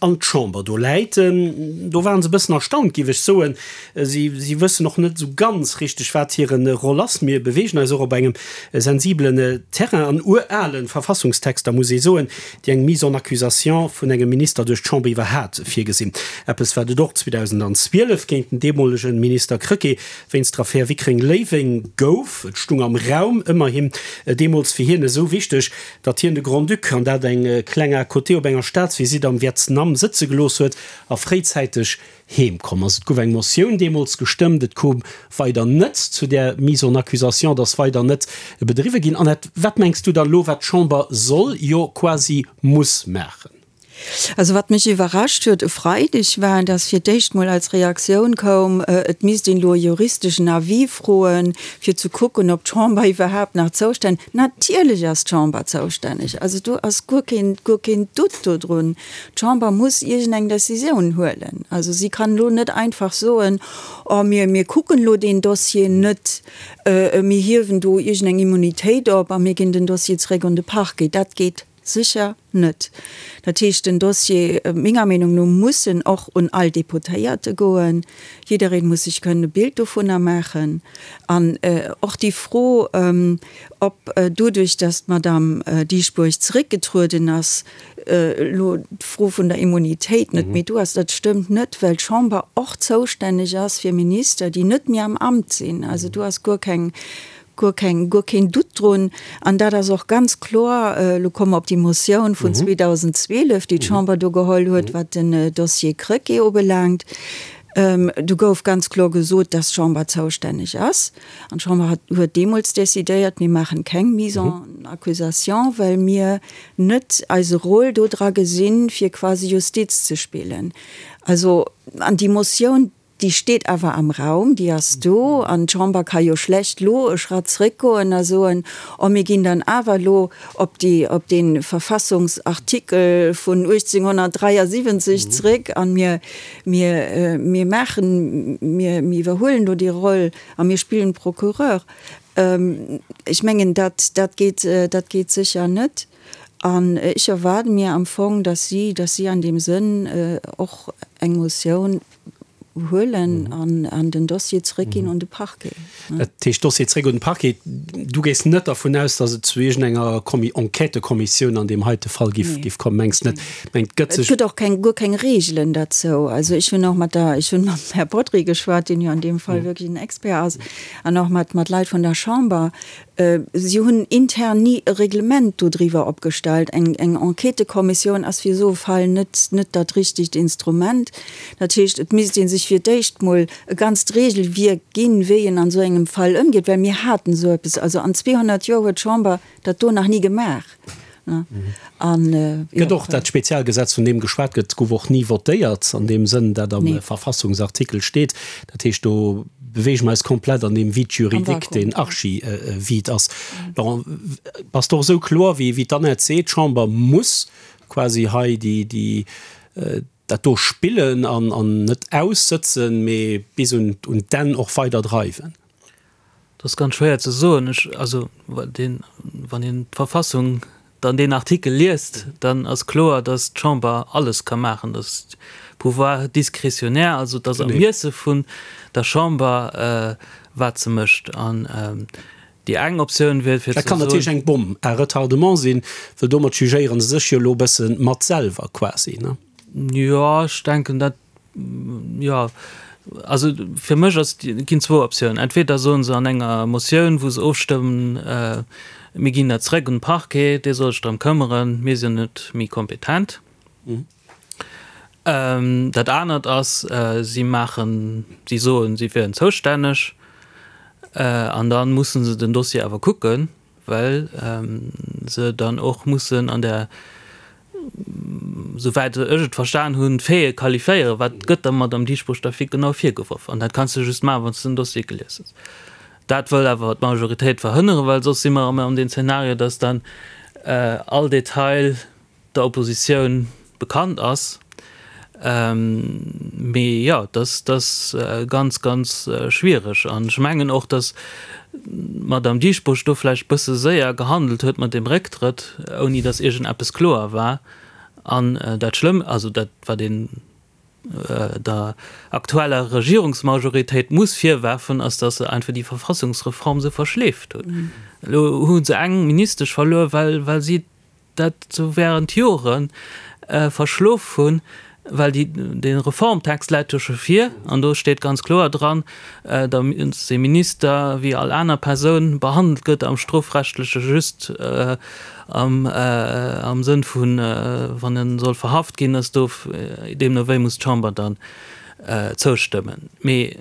an d'Chamber. Do läit en. Do ware se e bëssen erstaunt, géif ech soen. Si wëssen och net esou ganz richteg, wat hire Roll ass. Mir beweegen eis och op engem sensibelen Terrain an urale Verfassungstexter, muss ee soen, déi eng Mise en accusation vun engem Minister duerch d'Chamber iwwerhat virgesinn. Eppes, wat et och 2012 géint den deemolege Minister Krecké wéinst der Affär Wickreng-Léiweng gouf. Et stung am Raum, ëmmerhin deemools fir hien esou wichteg, datt hien de Grand-Duc, an dat eng kleng à côté, op enger Staatsvisitt am Vietnam sëtze gelooss huet a fréizäiteg Heem komm ass. Et gouf eng Motioun deemools gestëmmt, et koum weider net zu där Mise en accusation, et ass weider net bedriwwe ginn. Annette, wat mengs du dann elo, wat d'Chamber soll, jo quasi muss maachen? Also wat mech iwwerrascht huet e Freideg war, datt fir d'éischt mol als Reaktioun koum, et misst een elo e juristeschen Avis froen, fir ze kucken, ob d'Chamber iwwerhaapt nach zoustänneg. Natierlech ass d'Chamber zoustänneg, also do ass guer keen, guer keen Doute dodrun. D'Chamber muss iergendeng Décisioun huelen. Also si kann elo net einfach soen, Oh, mir, mir kucken elo deen Dossier net, mir hiewen do iergendeng Immunitéit op a mir ginn den Dossier zeréck un de Parquet. Dat geet sécher net. Dat heescht, den Dossier, menger Meenung no, muss en och un all Deputéierte goen. Jiddereen muss sech kënnen e Bild dovunner maachen. An och déi Fro, ob doduerch, datt d'Madame Dieschbourg zeréckgetrueden ass, elo d'Fro vun der Immunitéit net méi do ass, dat stëmmt net, well d'Chamber och zoustänneg ass fir Minister, déi net méi am Amt sinn. Also do ass guer keng, guer keng, guer keen Doute drun. An dat ass och ganz kloer, elo komme mer op déi Motioun vun 2012, déi d'Chamber do geholl huet, wat den Dossier Krecké ubelaangt. Do gouf ganz kloer gesot, dass d'Chamber zoustänneg ass. An d'Chamber hat, huet deemools decidéiert, mir maachen keng Mise en accusation, well mir net eise Rôle do dra gesinn, fir quasi Justiz ze spillen. Also, an déi Motioun, déi steet awer am Raum, déi ass do, an d'Chamber ka jo schlecht lo e Schratt zréckgoen a soen, oh mir ginn dann awer lo op déi, op dee Verfassungsartikel vun 1873 zréck an mir, mir, mir maachen, mir, mir iwwerhuelen do déi Roll a mir spillen Procureur. Ech mengen, dat, dat geet, dat geet sécher net. An ech erwaarde mir am Fong, dass si, dass si an deem Sënn och eng Motioun huelen an, an den Dossier zrëckginn un de Parquet. Dat heescht, Dossier zréck un de Parquet. Du gees net dervun aus, dass et zu iergendenger Kommi-, Enquêtëkommissioun an deem heite Fall giff, giff kommen, mengs net? Mengt, et gëtt sech. Et gëtt och keng, guer keng Regelen derzou. Also ech hunn och mat der, ech hunn mam Här Bodry geschwat, deen jo an deem Fall wierklech en Expert ass, an och mat, mat Leit vun der Chamber. Si hunn intern ni e Reglement dodriwwer opgestallt. Eng, eng Enquêtëkommissioun ass fir esou e Fall net, net dat richtegt Instrument. Dat heescht, et misst ee sech fir d'éischt mol e ganzt Regelwierk ginn, wéi een an esou engem Fall ëmgeet, well mir haten esou eppes, also an 200 Joer huet d'Chamber dat do nach ni gemaach. An, jo. Gëtt och dat Spezialgesetz, vun deem geschwat gëtt, gouf och ni votéiert an deem Sënn, dat am Verfassungsartikel steet. Dat heescht, do beweege mer eis komplett an deem Vide juridique, deen archi-vide ass. Laurent, bass de och esou kloer wéi d'Annette seet, d'Chamber muss quasi hei déi, dat do spillen an net aussëtzen, mee bis un d'Enn och weider dreiwen? Dat ass ganz schwéier ze soen. Ech, also deen, wann een d'Verfassung dann deen Artikel liest, dann ass kloer, datt d'Chamber alles ka maachen, datt Pouvoir discrétionnaire, also et ass am Ermiesse vun der Chamber, wat se mécht. An déi eng Optioun wier fir ze soen. Dat kann natierlech eng Bombe à retardement sinn, well domat jugéiere se sech jo elo e bësse mat selwer quasi, ne? Jo, ech denken dat Jo, also fir mech ass, ginn zwou Optiounen. Entweder soen se an enger Motioun, wou se ofstëmmen, mir ginn dat zrëck un de Parquet, dee soll sech drëm këmmeren, mir sinn net méi kompetent. Dat anert ass, si maachen, si soen, si wieren zoustänneg an da musse se den Dossier awer kucken. well se dann och mussen an der, souwäit ech et verstan hunn, d'Faite qualifiéieren, wat gëtt der Madamm Dieschbourg da fir genau virgeworf. An dat kanns de just maachen, wann s de den Dossier gelies hues. Dat wëll awer d'Majoritéit verhënneren, well soss si mer erëm an deem Zeenario, dass dann all Detail der Oppositioun bekannt ass. Mee jo, dat ass ganz, ganz schwiereg. An ech mengen och, datt d'Madamm Dieschbourg do vläicht e bësse séier gehandelt huet mat deem Récktrëtt, ouni datt iergendeppes kloer war. An dat Schlëmm, also dat, wat een der aktueller Regierungsmajoritéit muss virwerfen, ass, datt se einfach déi Verfassungsreform esou verschleeft hunn. Elo hu se eng Ministesch verluer, well si dat sou während Jore verschlof hunn, well déi, dee Reformtext läit jo scho vir an do steet ganz kloer dran, datt ee Minister wéi all aner Persoun behandelt gëtt am strofrechtleche just am am Sënn vun, wann e soll verhaft ginn, ass do deemno wéi muss d'Chamber dann zoustëmmen. Mee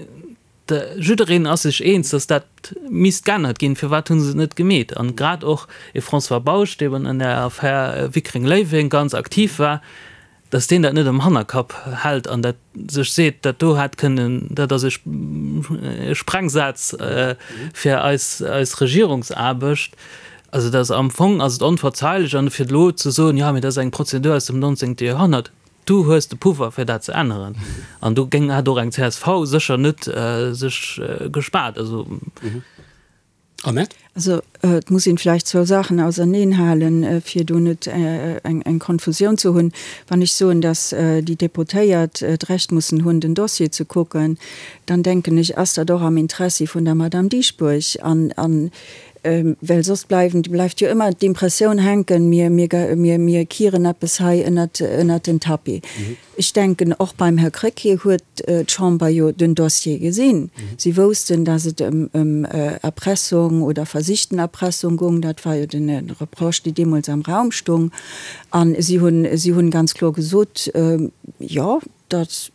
Jiddereen ass sech eens, datt dat misst geännert ginn. Firwat hu se et net gemeet? An grad och e François Bausch, dee an der Affär Wickreng-Léiweng ganz aktiv war, datt deen dat net am Hannerkapp hält an dat sech seet, dat do hätt kënnen, dat ass e Sprengsaz fir eis Regierungsaarbecht. Also dat ass am Fong ass et onverzeilech. An fir elo ze soen, jo, mee dat ass eng Prozedur aus dem 19. Joerhonnert, Du hues de Pouvoir fir dat ze änneren. An do géing, hätt och eng csv sécher net sech gespaart. Also. Annette? Also et muss een vläicht zwou Saachen auserneen halen, fir do net eng Konfusioun ze hunn. Wann ech soen, datt déi Deputéiert d'Recht mussen hunn, den Dossier ze kucken, dann denken ech, ass dat och am Interessi vun der Madame Dieschbourg. An Well soss bleiwen, bleift jo ëmmer d'Impressioun hänken, mir, mir, mir, mir kieren eppes hei ënnert, ënnert den Tapis. Ech denken, och beim Här Krecké huet d'Chamber jo den Dossier gesinn. Si woussten, dass et ëm, ëm Erpressung oder versichten Erpressung goung. Dat war jo den Reproche, dee deemools am Raum stung. A si hunn, si hunn ganz kloer gesot, Jo, datt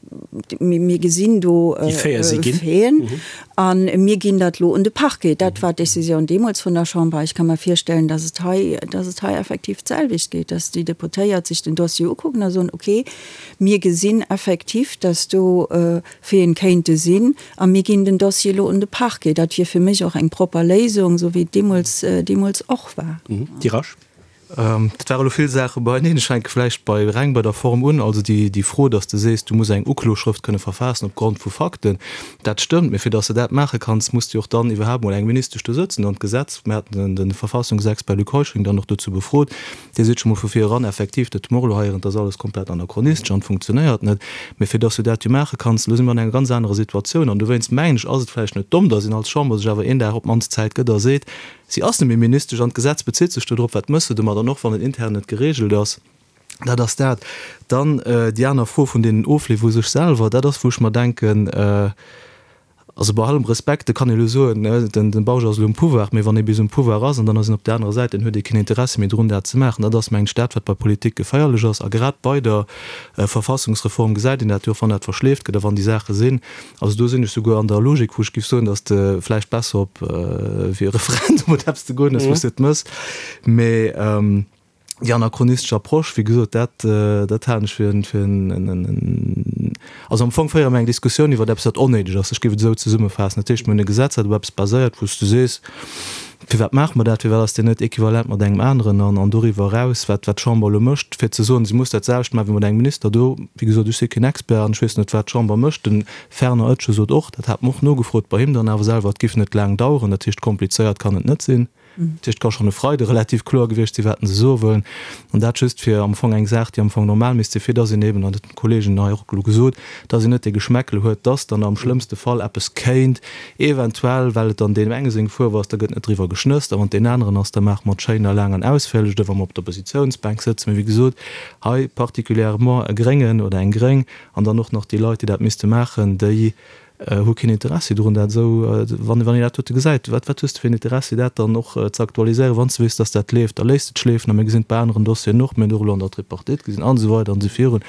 mir gesinn do Faiten a mir ginn dat elo un de Parquet. Dat war d'Décisioun deemools vun der Chamber. Ech ka mer virstellen, datt et hei, datt et hei effektiv d'selwecht geet, datt déi Deputéiert sech den Dossier ukucken a soen, okay, mir gesinn effektiv, datt do Faiten kéinte sinn a mir ginn den Dossier elo un de Parquet. Dat wier fir mech och eng propper Léisung, esou wéi et deemools, deemools och war. Dirache. Dat ware elo vill Saache beieneen. Ech fänke vläicht bei reng bei der Form un. Also déi, déi Fro, datt s de sees, du muss eng Ukloschrëft kënne verfaassen op Grond vu Fakten, dat stëmmt. Mee fir datt s de dat maache kanns, muss de och dann iwwerhaapt mol eng Ministesch do sëtzen. An d'Gesetz, mir haten den, de Verfassungsexpert Luc Heuschling dann och dozou befrot, dee seet scho mol vu vir eran, effektiv, dat hu mer och elo heieren, dat ass alles komplett anachronistesch an funktionéiert net. Mee fir datt s du dat jo maache kanns, elo si mer an enger ganz anerer Situatioun. An dowéinst mengen ech, ass et vläicht net domm, datt een als Chamber sech awer een Dag op d'mannst Zäit gëtt a seet, Si ass net méi Ministesch an d'Gesetz bezitt sech do drop. Wat mëss de domat? An och wann et intern net geregelt ass, dat ass dat. Dann déi aner Fro vun deenen Ofleef u sech selwer, dat ass wou ech mer denken, also bei allem Respekt, et kann ee elo soen, den Bausch ass elo um Pouvoir, mee wann ee bis um Pouvoir ass an dann ass een op där anerer Säit, dann huet ee keen Interessi méi drun dat ze maachen. Dat ass mengen ech dat wat bei Politik geféierlech ass. A grad bei der Verfassungsreform gesäit een dat jo och, wann dat verschleeft gëtt a wann déi Saache sinn, Also do sinn ech souguer an der Logik, wou ech géif soen, datt de vläicht besser op wéi e Referendum oder eppes ze goen ass, wou s de et mëss. Mee. Déi anachronistesch Approche, wéi gesot, dat, dat halen ech fir en, fir en, en, also am Fong féiere mer eng Diskussioun iwwer eppes, wat onnéideg ass. Ech géif et esou zesummefaassen. Dat heescht, mir hunn e Gesetz, dat op eppes baséiert, wou s du sees, Firwat maache mer dat? Firwat ass deen net equivalent mat engem aneren? An, an doriwwer eraus, wat, wat d'Chamber elo mécht, fir ze soen, si muss dat selwecht maachen wéi mat engem Minister do, wéi gesot, ech si keen Expert an ech weess net, wat d'Chamber mécht. De Fernand Etgen sot och, dat hat mer och nogefrot bei him dann awer selwer, et géif net laang daueren. Dat heescht, komplizéiert kann et net sinn. Dat heescht, et ka schonn e Freide relativ kloer gewiescht sinn, wat se soe wëllen. An dat just fir am Fong eng Saach, déi am Fong normal misst sinn, fir dass een eben, an dat hunn d'Kollegen hei och elo gesot, dass een net dee Geschmäckle huet, dass dann am schlëmmste Fall eppes kéint eventuell, well et dann deem enge seng Fuerf ass, da gëtt net driwwer geschnësst, a wann et deen aneren ass, da maache mer et schéin a laang an ausféierlech, oder wa mer op der Oppositiounsbänk sëtzen. Mee wéi gesot, hei particulièrement e Gréngen oder eng Gréng an dann och nach déi Leit, déi dat misste maachen, déi Hu keen Interessi drun, dat esou, wann een dat dote gesäit, wat wat hues de fir en Interessi, dat dann och ze aktualiséieren, wann s de weess, dass dat leeft, da léisst et schleefen. A mir gesinn et bei aneren Dossieren och, mir hunn et och elo an der Tripartite gesinn an esou weider an esou virun.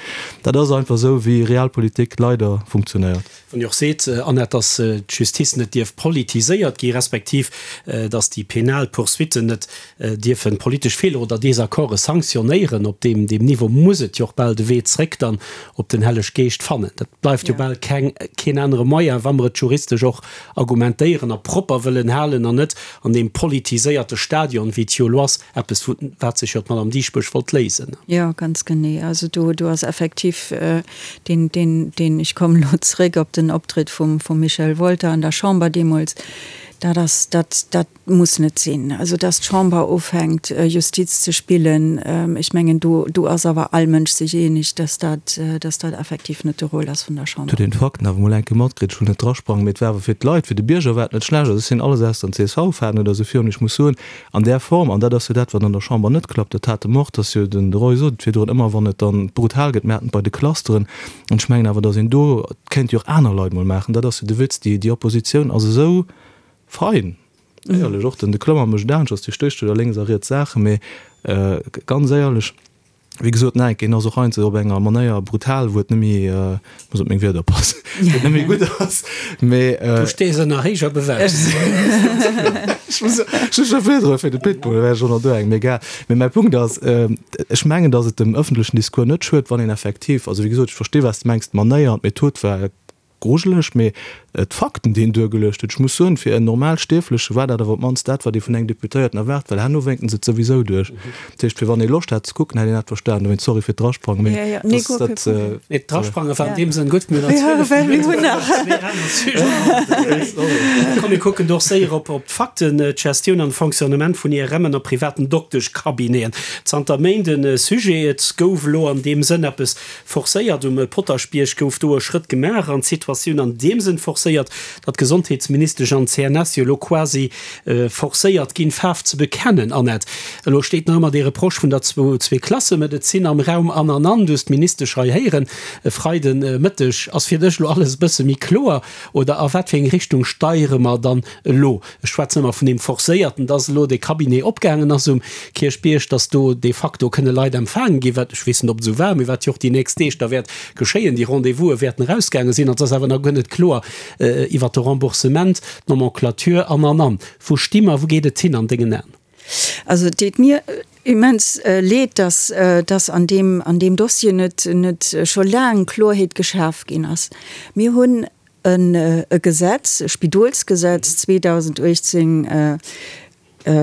Dat ass einfach esou, wéi Realpolitik leider funktionéiert. Wann Dir och seet, Annette, dass d'Justice net dierf politiséiert gi respektiv dass déi penal Poursuitten net dierfe politesch Feeler oder Desaccorde sanktionéieren, op deem Niveau muss et jo och bal de Wee zréck dann op den Helleg Geescht fannen. Dat bleift jo bal keng, keen anere Moyen, wa mer et juristesch och argumentéieren a propper wëllen halen an net an deem politiséierte Stadion, wéi et jo elo ass, eppes vu wat sech jo d'Madame Dieschbourg wollt léisen. Jo, ganz genee. Also do, do ass effektiv deen, deen, deen, ech kommen elo zréck op den Optritt vum, vum Michel Wolter an der Chamber deemools, dat ass, dat, dat, Muss net sinn. Also dass d'Chamber ufänkt Justiz ze spillen, ech mengen do do ass awer all Mënsch sech eeneg, dass dat dass dat effektiv net de Rôle ass vun der Chamber. Huet een d'Fakten awer mol eng Kéier matkritt. Ech wëll net drasprangen, mee et war awer fir d'Leit, fir de Bierger war et net schlecht. Also ech sinn alles ausser en CSV-Fan oder esou virun. Ech muss soen, an där Form, an dat ass jo dat, wat an der Chamber net klappt, dat hate mer och, dass jo den de Roy sot et virdrun, ëmmer wann et dann brutal gëtt, mir haten et bei de Clusteren, an ech mengen awer, dass een do, et kéint jo och aner Leit mol maachen, dat ass jo de Witz, déi déi Oppositioun ass esou Fein! Éierlech, och den de Klommer mécht anescht, ass, dee stécht jo da lénks a riets Saachen, mee ganz éierlech, wéi gesot, nein, en ass och heiansdo op enger Manéier brutal, wou et net méi, muss op meng Wierder oppassen, wou et net méi gutt ass, mee. Du stees ënner héijer Bewächung. Ech muss, ech hu scho virdru fir de Pitbull, da wär ech och nach do eng, mee egal. Mee mäi Punkt ass, ech mengen, datt et dem ëffentlechen Discours net schued, wann een effektiv, also wéi gesot, ech versti wat s de mengs, d'Manéier an d'Method war Grujeleg, mee d'Fakten, déi en duergeluecht huet, ech muss soen, fir en normal Stierfleche war dat awer op d'mannst dat, wat ee vun engem Deputéierten erwaart, well herno wénken se et souwisou duerch. Dat heescht, fir wann ee Loscht hat ze kucken, hätt een dat verstanen. Dowéinst sorry fir d'Drasprangen, mee dass dat. Nee, d'Drasprange war an deem Sënn gutt, mir hunn nach 12 Minutten fir nach zwee aner Sujeten. Komm, mir kucken do och séier op d'Fakten, D'Gestioun an de Fonctionnement vun IRMen a privaten Dokteschcabineten. Zanter Méint e Sujet. Et gouf elo an deem Sënn eppes Forcéiert. Um Potaschbierg gouf do e Schrëtt gemaach an d'Situatioun an deem Sënn forcéiert, datt d'Gesondheetsministesch an d'CNS jo elo quasi forcéiert ginn, Faarf ze bekennen. Annette, elo steet nach ëmmer dee Reproche vun der Zweeklassemedezin am Raum an an an. Du hues d'Ministesch hei héieren e Freiden Mëtteg. Ass fir dech elo alles e bësse méi kloer oder a wat fir eng Richtung steiere mer dann elo? Ech schwätzen ëmmer vun deem Forcéierten, dass elo dee Cabinet opgaangen ass um Kierchbierg, dass do de facto kënne Leit empfaange ginn, wat, ech weess net, ob et esou war, mee wat jo och déi nächst Deeg da wäert geschéien, déi Rendez-vouse wäerten erausgaange sinn. An et ass awer nach guer net kloer iwwert de Remboursement, d'Nomenclature an, an, an. Wou sti mer, wou geet et hin an dengen Aen? Also et deet mir immens leed, dass, dass an deem, an deem Dossier net, net scho laang Kloerheet geschaf ginn ass. Mir hunn e Gesetz, e Spidolsgesetz 2018,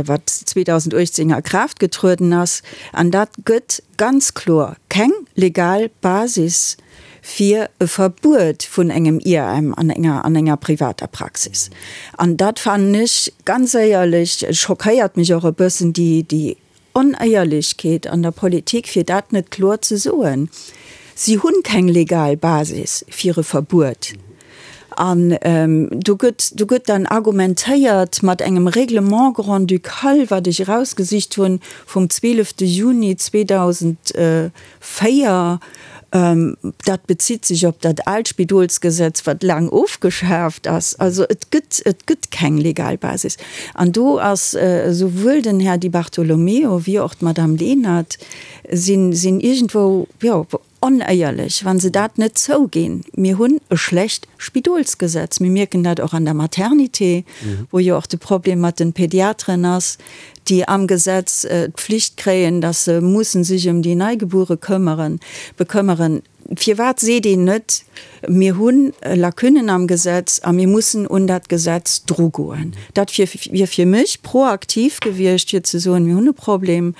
wat 2018 a Kraaft getrueden ass, an dat gëtt ganz kloer keng legal Basis fir e Verbuet vun engem IRM an enger an enger privater Praxis. An dat fannen ech ganz éierlech, schockéiert mech och e bëssen, déi déi Onéierlechkeet an der Politik, fir dat net kloer ze soen. Si hunn keng legal Basis fir e Verbuet. An do gëtt, do gëtt dann argumentéiert mat engem Règlement grand-ducal, wat ech erausgesicht hunn, vum 12. Juni 2004, Dat bezitt sech op dat aalt Spidolsgesetz, wat laang ofgeschaaft ass. Also et gëtt, et gëtt keng legal Basis. An do ass esouwuel den Här Di Bartolomeo wéi och d'Madame Lenert sinn, sinn iergendwou, jo, onéierlech, wa se dat net zouginn. Mir hunn e schlecht Spidolsgesetz. Mir mierken dat och an der Maternité, wou jo och de Problem mat de Pediateren ass. déi am Gesetz d'Pflicht kréien, dass se mussen sech ëm déi Neigebuere këmmeren, bekëmmeren. Firwat seet een net, mir hu Lacunnen am Gesetz a mir mussen un dat Gesetz drugoen? Dat wier fir mech proaktiv gewiescht, fir ze soen, mir hunn e Problem.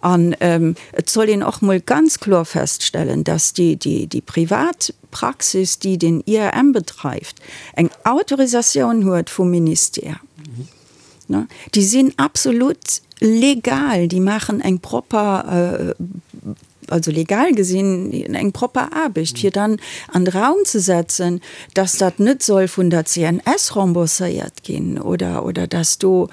An et soll een och mol ganz kloer feststellen, dass déi privat Praxis, déi den IRM bedreift, eng Autorisatioun huet vum Ministère. Déi sinn absolut legal, déi maachen eng propper, also legal gesinn, eng propper Aarbecht. Fir dann an de Raum ze setzen, dass dat net soll vun der CNS rembourséiert ginn oder, oder dass do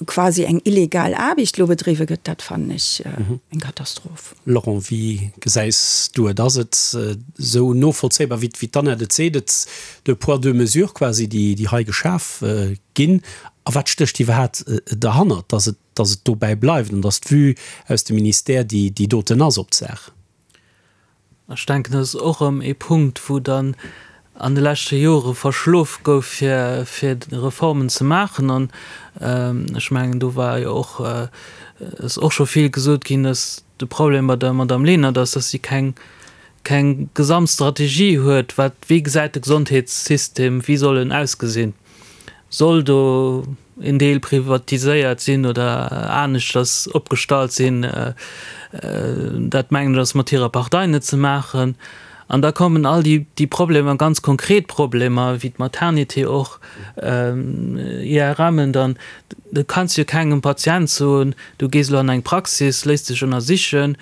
quasi eng illegal Aarbecht elo bedriwwe gëtt, dat fannen ech eng Katastroph. Laurent, wéi gesäis du et? Ass et esou novollzéibar, wéi d'Annette et seet, et deux poids, deux mesures quasi, déi hei geschaf ginn? A wat stécht iwwerhaat derhannert, dass et, dass et dobäi bleift an dass d'Vue aus dem Ministère déi déi doten ass op d'Saach? Ech denken, dat ass och erëm ee Punkt, wou dann an de leschte Jore verschlof gouf, fir, fir Reformen ze maachen. An ech mengen, do war jo och, ass och scho vill gesot ginn, dass de Problem bei der Madame Lenert ass, dass si keng, keng Gesamtstrategie huet, wat, wéi gesäit de Gesondheetssystem, wéi soll en ausgesinn? Soll do een Deel privatiséiert sinn oder aneschters opgestallt sinn? Dat mengen ech ass mat hirer Partei net ze maachen. An da kommen all déi Problemer, ganz konkret Problemer, wéi d'Maternité och, IRMen dann. Du kanns jo kengem Patient soen, du gees elo an eng Praxis, léiss dech ënnersichen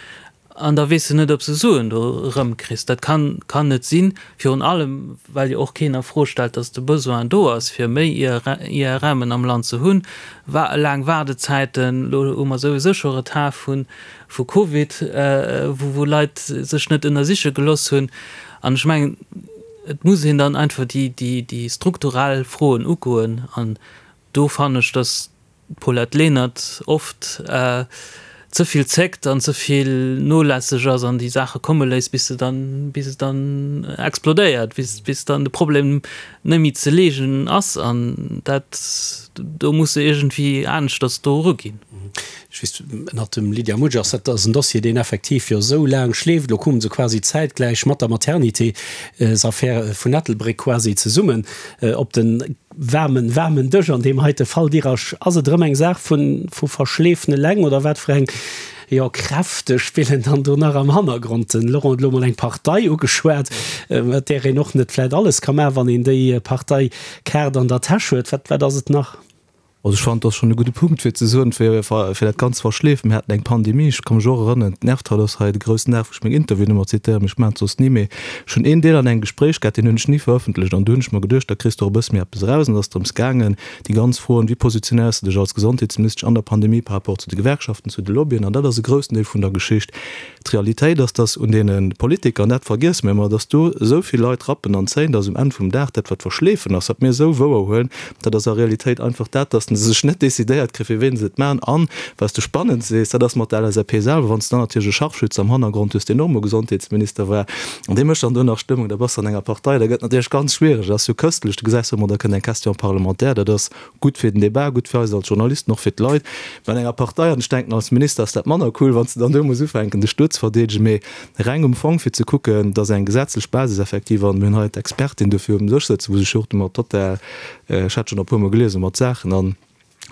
An da weess de net, ob s de Suen do erëmkriss. Dat kann, kann net sinn, virun allem well jo och keen a Fro stellt, dass de Besoin do ass, fir méi IRMen am Land ze hunn. Wa laang Waardezäiten, elo hu mer souwisou scho Retard vu, vu Covid, wou, wou Leit sech net ënnersiche geloss hunn. An ech mengen, et muss een dann einfach déi, déi, déi strukturell Froen ugoen. An do fannen ech, dass d'Paulette Lenert oft ze vill zéckt an ze vill nolässeg ass an déi Saache komme léisst, bis se dann, bis et dann explodéiert, bis, bis dann de Problem net méi ze leegen ass. An dat, do muss se iergendwéi aneschters do eruginn. Ech weess, ënnert dem Lydia Mutsch ass dat ass en Dossier, deen effektiv jo esou laang schleeft. Elo kume se quasi zäitgläich mat der Maternité-s-Affär vun Ettelbréck quasi zesummen op den Waarmen, waarmen Dësch an deem heite Fall. Dirasch, ass et erëm eng Saach vun, vu Verschleefen eleng oder wat fir eng, jo, Kräfte spillen dann do nach am Hannergrond? Den Laurent huet elo mol eng Partei ugeschwat, mat där een och net vläit alles ka maachen, wann een déi Parteikaart an der Täsch huet. Wat, wat ass et nach? Also ech fannen, et ass schonn e gudde Punkt, fir ze soen, fir, fir dat Ganzt verschleefen. Mir haten eng Pandemie, ech ka mech och erënneren, d'Nervtal ass hei de groussen Dag, wou ech meng Interviewen ëmmer zitéieren, mee ech maachen et soss ni, mee ech hunn een Deel an engem Gespréich gehat, deen hunn ech ni verëffentlecht an du hunn ech mer geduecht, da kriss de och e bësse méi eppes eraus. An et ass drëms gaangen, déi ganz Froen, wéi positionéiers de dech als Gesondheetsministesch an der Pandemie par rapport zu de Gewerkschaften, zu de Lobbyen, an dat ass e groussen Deel vun der Geschicht. D'Realitéit ass, dass un deene Politiker, an dat vergiesse mir ëmmer, dass do esou vill Leit rappen an zéien, dass um Enn vum Dag dat, wat verschleefen ass, wat mir esou wouer huelen, dat ass a Realitéit einfach dat, dass se sech net decidéiert kréien, fir ween se et maachen. An, wat s de spannend sees, dat ass mat der LSAP selwer, wann s de dann natierlech e Scharfschütze am Hannergrond hues, deen och emol Gesondheetsminister war, an dee mécht dann do nach Stëmmung, da bass de an enger Partei, da gëtt et natierlech ganz schwiereg. Dat ass jo këstlech, du gesäis jo ëmmer, da kënnt eng Question parlementaire, dat ass Gutt fir den Debat, gutt fir eis als Journalisten, och fir d'Leit. Mä an enger Partei, an ech denken als Minister ass dat manner cool, wann s de dann do muss ufänken dech do ze verdeedegen, mee reng um Fong fir ze kucken, dass eng gesetzlech Basis effektiv, an mir hunn hei d'Expertin dofir um Dësch sëtzen, wou sech jo och domat total, ech hat schonn e puermol geliesen, mat Saachen an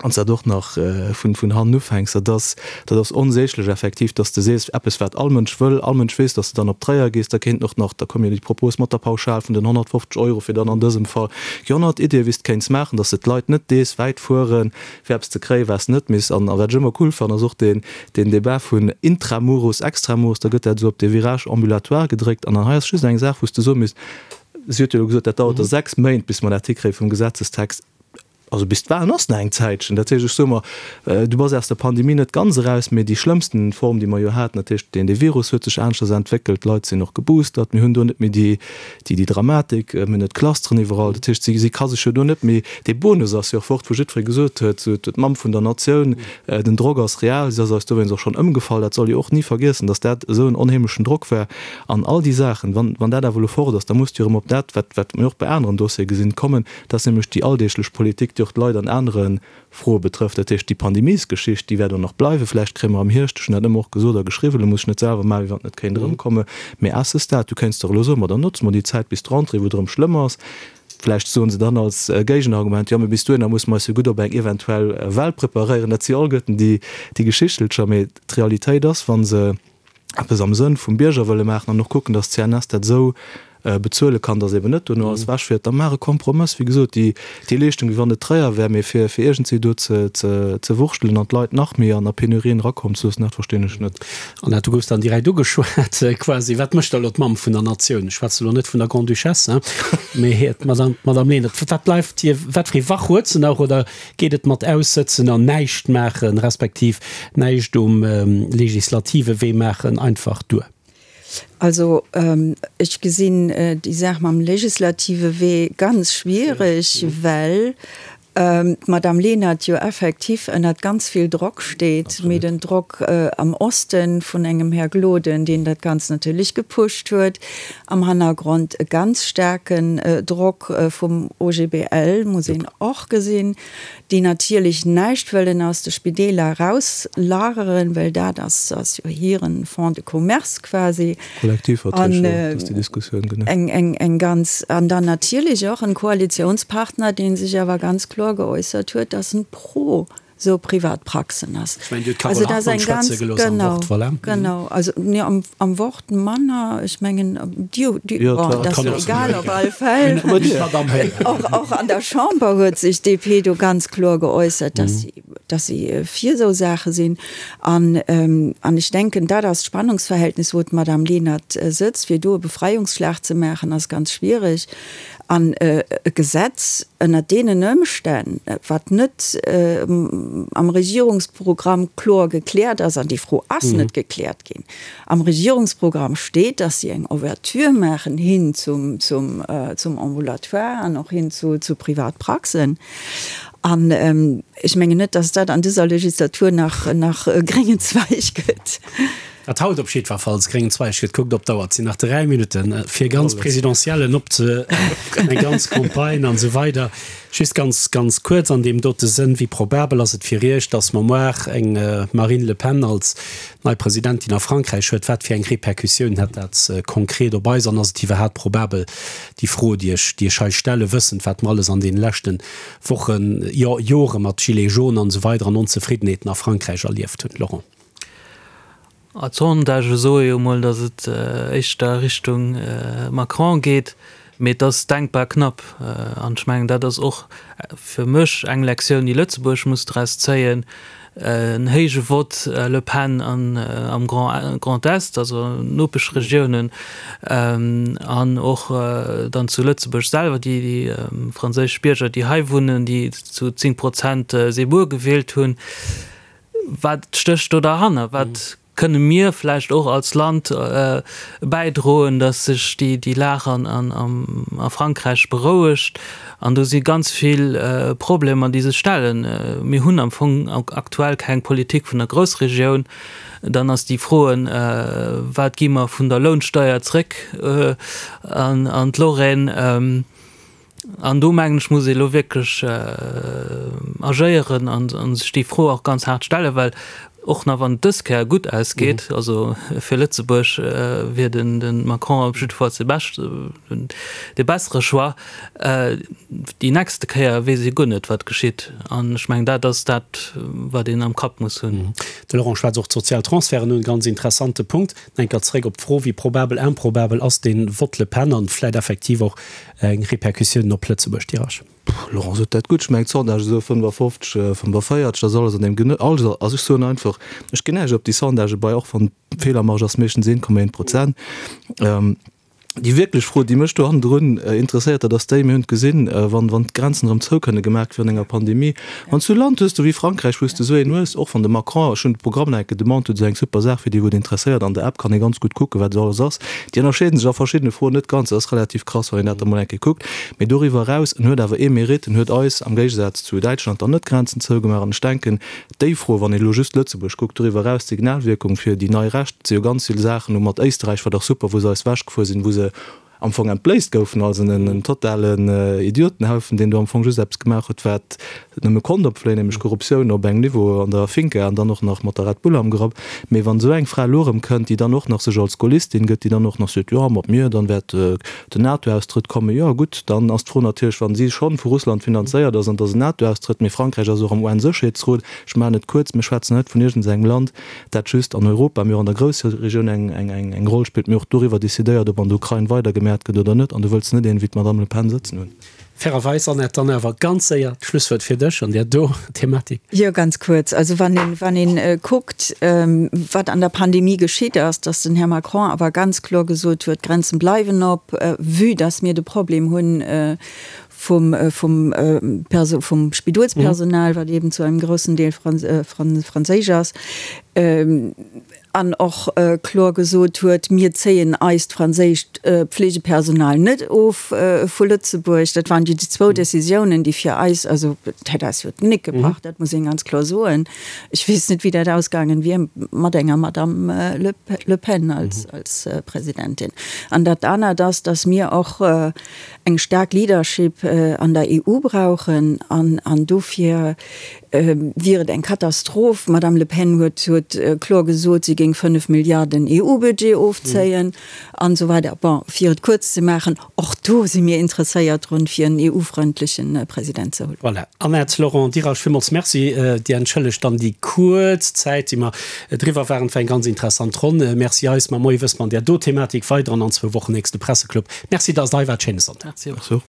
wann s dat och nach vun vun hannen ufänks, dat ass dat ass onsäglech effektiv, dass de sees, eppes wat all Mënsch wëll, all Mënsch weess, dass de dann op Tréier gees, da kéinten och nach, da koum jo déi Propos mat der Pauschal vun den 150 Euro fir dann an dësem Fall Déi 100 Iddie wéi s de kéints maachen, dass de d'Leit net dees wäit fueren, fir eppes ze kréien, wat s de net misst. An wat ech ëmmer cool fannen, ass och deen deen Débat vun intramuros, extramuros, da gëtt dat esou op dee Virage ambulatoire gedréckt. An hei ass just eng Saach, wou s de soe misst, si huet jo elo gesot, dat dauert da 6 Méint, bis mer dat hikréie vum Gesetzestext. Also bis d'Wahlen ass nach eng Zäitchen. Dat heescht, ech soe mer, du bass aus der Pandemie net ganz eraus, mee déi schlëmmsten Form, déi mer jo haten, dat heescht, deen dee Virus huet sech aneschters entwéckelt, d'Leit sinn och geboostert, mir hunn do net méi déi, déi déi Dramatik, mir hunn net d'Clusteren iwwerall. Dat heescht, si si ka sech jo do net méi, dee Bonus ass jo och fort, wou jiddweree gesot huet, sou d'Mamm vun der Natioun, den Drock ass real, si ass eis dowéinst och schonn ëmgefall. Dat soll ee och ni vergiessen, datt dat esou en onheemlechen Drock war. An all déi Saachen, wann wann dat awer elo fort ass, da muss du erëm op dat, wat wat mir och bei aneren Dossiere gesinn, kommen, Dat ass nämlech déi alldeeglech Politik, déi. déi och d'Leit an anere Froe betrëfft. Dat heescht, déi Pandemiesgeschicht, déi wäert och nach bleiwen. Vläicht kréie mer am Hierscht, ech hunn dat ëmmer och gesot a geschriwwen, elo muss ech net selwer maachen, wéi wann et net kéint erëmkommen, mee à ce stade, du kéints dach elo soen, ma dann notze mer déi Zäit bis d'Rentrée, wou et erëm schlëmm ass. Vläicht soen se dann als Géigenargument, jo, mee bis dohinner musse mer eis jo gutt op eng eventuell Well preparéieren. Dat si alleguerten déi Geschichtelcher. Mee d'Realitéit ass, wa se eppes am Sënn vum Bierger wëlle maachen an och kucken, datt d'CNS dat esou bezuele kann, datt eben net dono alles ewechfiert, da maach e Kompromëss. Wéi gesot, déi déi Leeschtung, wéi wann et Tréier wär, mee fir fir iergendwéi do ze ze ze wurschtelen an d'Leit nach méi an a Penurien erakommen ze loossen, dat verstinn ech net. Annette, du goufs dann direkt ugeschwat quasi. Wat mécht da elo d'Mamm vun der Natioun? Ech schwätze elo net vun der Grande-Duchesse, mee d'Madame, d'Madame Lenert. Wat bleift hir, wat fir ee Wach huet se nach oder Geet et mat aussëtzen an näischt maachen, respektiv näischt um legislative Wee maachen einfach duer? Also ech gesinn déi Saach mam legislative Wee ganz schwierig, well d'Madame Lenert jo effektiv ënnert ganz vill Drock steet, mee den Drock am Osten vun engem Här Gloden, deen dat Ganzt natierlech gepusht huet, Am Hannergrond e ganz staarken Drock vum OGBL, muss een och gesinn, déi natierlech näischt wëllen aus de Spideeler erauslageren, well dat ass jo hiren Fonds de commerce quasi. Kollektivverträg, jo, dat ass déi Diskussioun, genau. Eng ganz, an dann natierlech och en Koalitionspartner, dee sech awer ganz kloer geäussert huet, dass en pro sou privat Praxen ass. Ech mengen, Dir hutt d'Carole Hartmann schwätze gelooss am Wort, voilà. Genau, also nee, am, am Wort manner, ech mengen, Dir, Dir, bon, dat ass jo egal, op alle Fäll. Och, och an der Chamber huet sech d'DP do ganz kloer geäussert, dass si, dass si fir esou Saache sinn. An, an ech denken, dat ass d'Spannungsverhältnis, wou d'Madame Lenert sëtzt. Fir do e Befreiungsschlag ze maachen, ass ganz schwierig. An e Gesetz ënnert deenen Ëmstänn, wat net am Regierungsprogramm kloer gekläert ass, an déi Fro ass net gekläert ginn, am Regierungsprogramm steet, dass si eng Ouverture maachen hin zum Ambulatoire an och hin zu Privatpraxen. An ech mengen net, dass dat an dëser Legislatur nach gréngen Zweig gëtt. Wat haut op jiddwerfalls gréngen Zweig gëtt, kuckt op d'Auer, et sinn nach 3 Minutten, fir ganz Présidentiellen op ze, eng ganz Campagne an esou weider. Just ganz, ganz kuerz an deem dote Sënn, Wéi probabel ass et fir Iech, datt mer moar eng Marine Le Pen als nei Presidentin a Frankräich huet? Wat fir eng Répercussioun hätt dat konkret op eis an ass et iwwerhaapt probabel, déi Fro, déi ech, déi ech hei stellen, wëssend, wat mer alles an deene leschte Wochen, jo Jore mat Gilets jaunes an esou weider an Onzefriddenheeten a Frankräich erlieft hunn? Laurent. D'Sondagë soe jo mol, datt et éischter Richtung Macron geet, mee et ass denkbar knapp. An ech mengen, dat ass och fir mech eng Lektioun, déi Lëtzebuerg muss draus zéien, En héije Vott Le Pen am Grand Est, also Nopeschregiounen, an och dann zu Lëtzebuerg selwer, déi franséisch Bierger, déi hei wunnen, déi zu 10 Prozent Zemmour gewielt hunn. Wat stécht do derhanner? Wat kënne mir vläicht och als Land bäidroen, datt sech déi Lag a Frankräich berouegt? An do si ganz vill Problemer, déi sech stellen. Mir hunn am Fong aktuell keng Politik vun der Groussregioun. Dann ass déi Froen, Wat gi mer vun der Lounsteier zréck an d'Lorraine? An do mengen ech, muss ee elo wierklech agéieren a sech déi Fro och ganz haart stellen, well och nach wann et dës Kéier gutt ausgeet, also fir Lëtzebuerg wier den de Macron op jiddefalls de beschte, de bessere Choix, déi nächste Kéier weess ee guer net, wat geschitt. An ech mengen, dat ass dat, wat een am Kapp muss hunn. De Laurent schwätzt och d'sozial Transferten un, ganz interessante Punkt. Enker zeréck op d'Fro, wéi probabel, improbabel ass dee Vott Le Pen an vläit effektiv och eng Repercussioun op Lëtzebuerg, Dirac? Laurent sot dat gutt. Ech mengen d'Sondage esou 55, 45, dat ass alles an deem Genö-, also ech soen einfach, ech ginn näischt op déi Sondagë bei, och wann d'Feelermarge ass meeschtens 1,1 Prozent. Déi wierklech Fro, déi mech do hannendrun interesséiert, dat ass déi, mir hunn et gesinn, wann, wann d'Grenzen erëm zou kënne gemaach gi virun enger Pandemie, wann s du e Land hues, do wéi Frankräich, wou s de esou een hues, och wann de Macron, ech hunn de Programm nach eng Kéier demanded, huet esou eng super Saach, fir déi wou et interesséiert, an der App kann ee ganz gutt kucken, wat esou alles ass. Déi ënnerscheeden sech a verschiddene Froen net ganz, dat ass relativ krass, wann een dat da mol eng Kéier kuckt. Mee doriwwer eraus, en huet awer ee Mérite, en huet eis, am Géigesaz zu Däitschland, dann net d'Grenzen zougemaach. An ech denken, déi Fro, wann een elo just Lëtzebuerg kuckt, doriwwer eraus d'Signalwierkung fir déi nei Recht, et si jo ganz vill Saachen, elo mat Éisterräich war dach super, wou se eis ewechgefuer sinn, wou se. am Fong entbléisst goufen als en totalen Idiotenhaufen, deen do am Fong just eppes gemaach huet, wat nëmme konnt opfléien, nämlech Korruptioun op engem Niveau an der Finca an dann och nach mat der Red Bull am Grapp. Mee wann esou eng Fra elo erëm kënnt, déi dann och nach sech als Gaullistin gëtt, déi dann och nach seet, jo, mat mir, dann wäert den NATO-Austrëtt kommen, jo gutt, dann ass d'Fro natierlech, wa si schonn vu Russland finanzéiert ass an dass en NATO-Austrëtt, mee Frankräich ass och am UN-Sécherheetsrot, ech maachen et kuerz, mir schwätzen net vun iergendengem Land, dat just an Europa, mee och an der Groussregioun eng Roll spillt, mee och doriwwer decidéiert, ob an der Ukrain weidergemäert gëtt oder net. An do wëlls de net een wéi d'Madame Le Pen sëtzen hunn. Fairerweis, Annette, dann awer ganz séier d'Schlusswuert fir dech an där do Thematik. Jo, ganz kuerz. Also wann een, wann een kuckt, wat an der Pandemie geschitt ass, datt den Här Macron awer ganz kloer gesot huet, d'Grenzen bleiwen op, vue datt mir de Problem hunn vum, vum Perso, vum Spidolspersonal, wat eben zu engem groussen Deel franséisch ass, an och kloer gesot huet, mir zéien eist franséischt Pflegepersonal net of vu Lëtzebuerg. Dat waren déi zwou Décisiounen, déi fir eis, also dat hätt eis jo d'Gnéck gebrach, dat muss een ganz kloer soen. Ech weess net, wéi dat ausgaangen wier mat enger Madame Le Pen als Presidentin. An dat anert ass, datt mir och eng staark Leadership an der EU brauchen an dofir wier et eng Katastroph. D'Madame Le Pen huet huet kloer gesot, si géing 5 Milliarden EU-Budget ofzéien an esou weider. Bon, fir et kuerz ze maachen, och do si mir interesséiert drun, fir en EU-frëndleche President ze hunn. Voilà. Annette, Laurent Dirasch, villmools Merci. Dir entschëllegt dann déi kuerz Zäit, déi mer driwwer waren. Et war eng ganz interessant Ronn. Merci eis. Mar Moie wësse mer an där do Thematik weider an an zwou Wochen nächste Presseclub. Merci, dass Der hei waart. Schéine Sonntag. Merci och.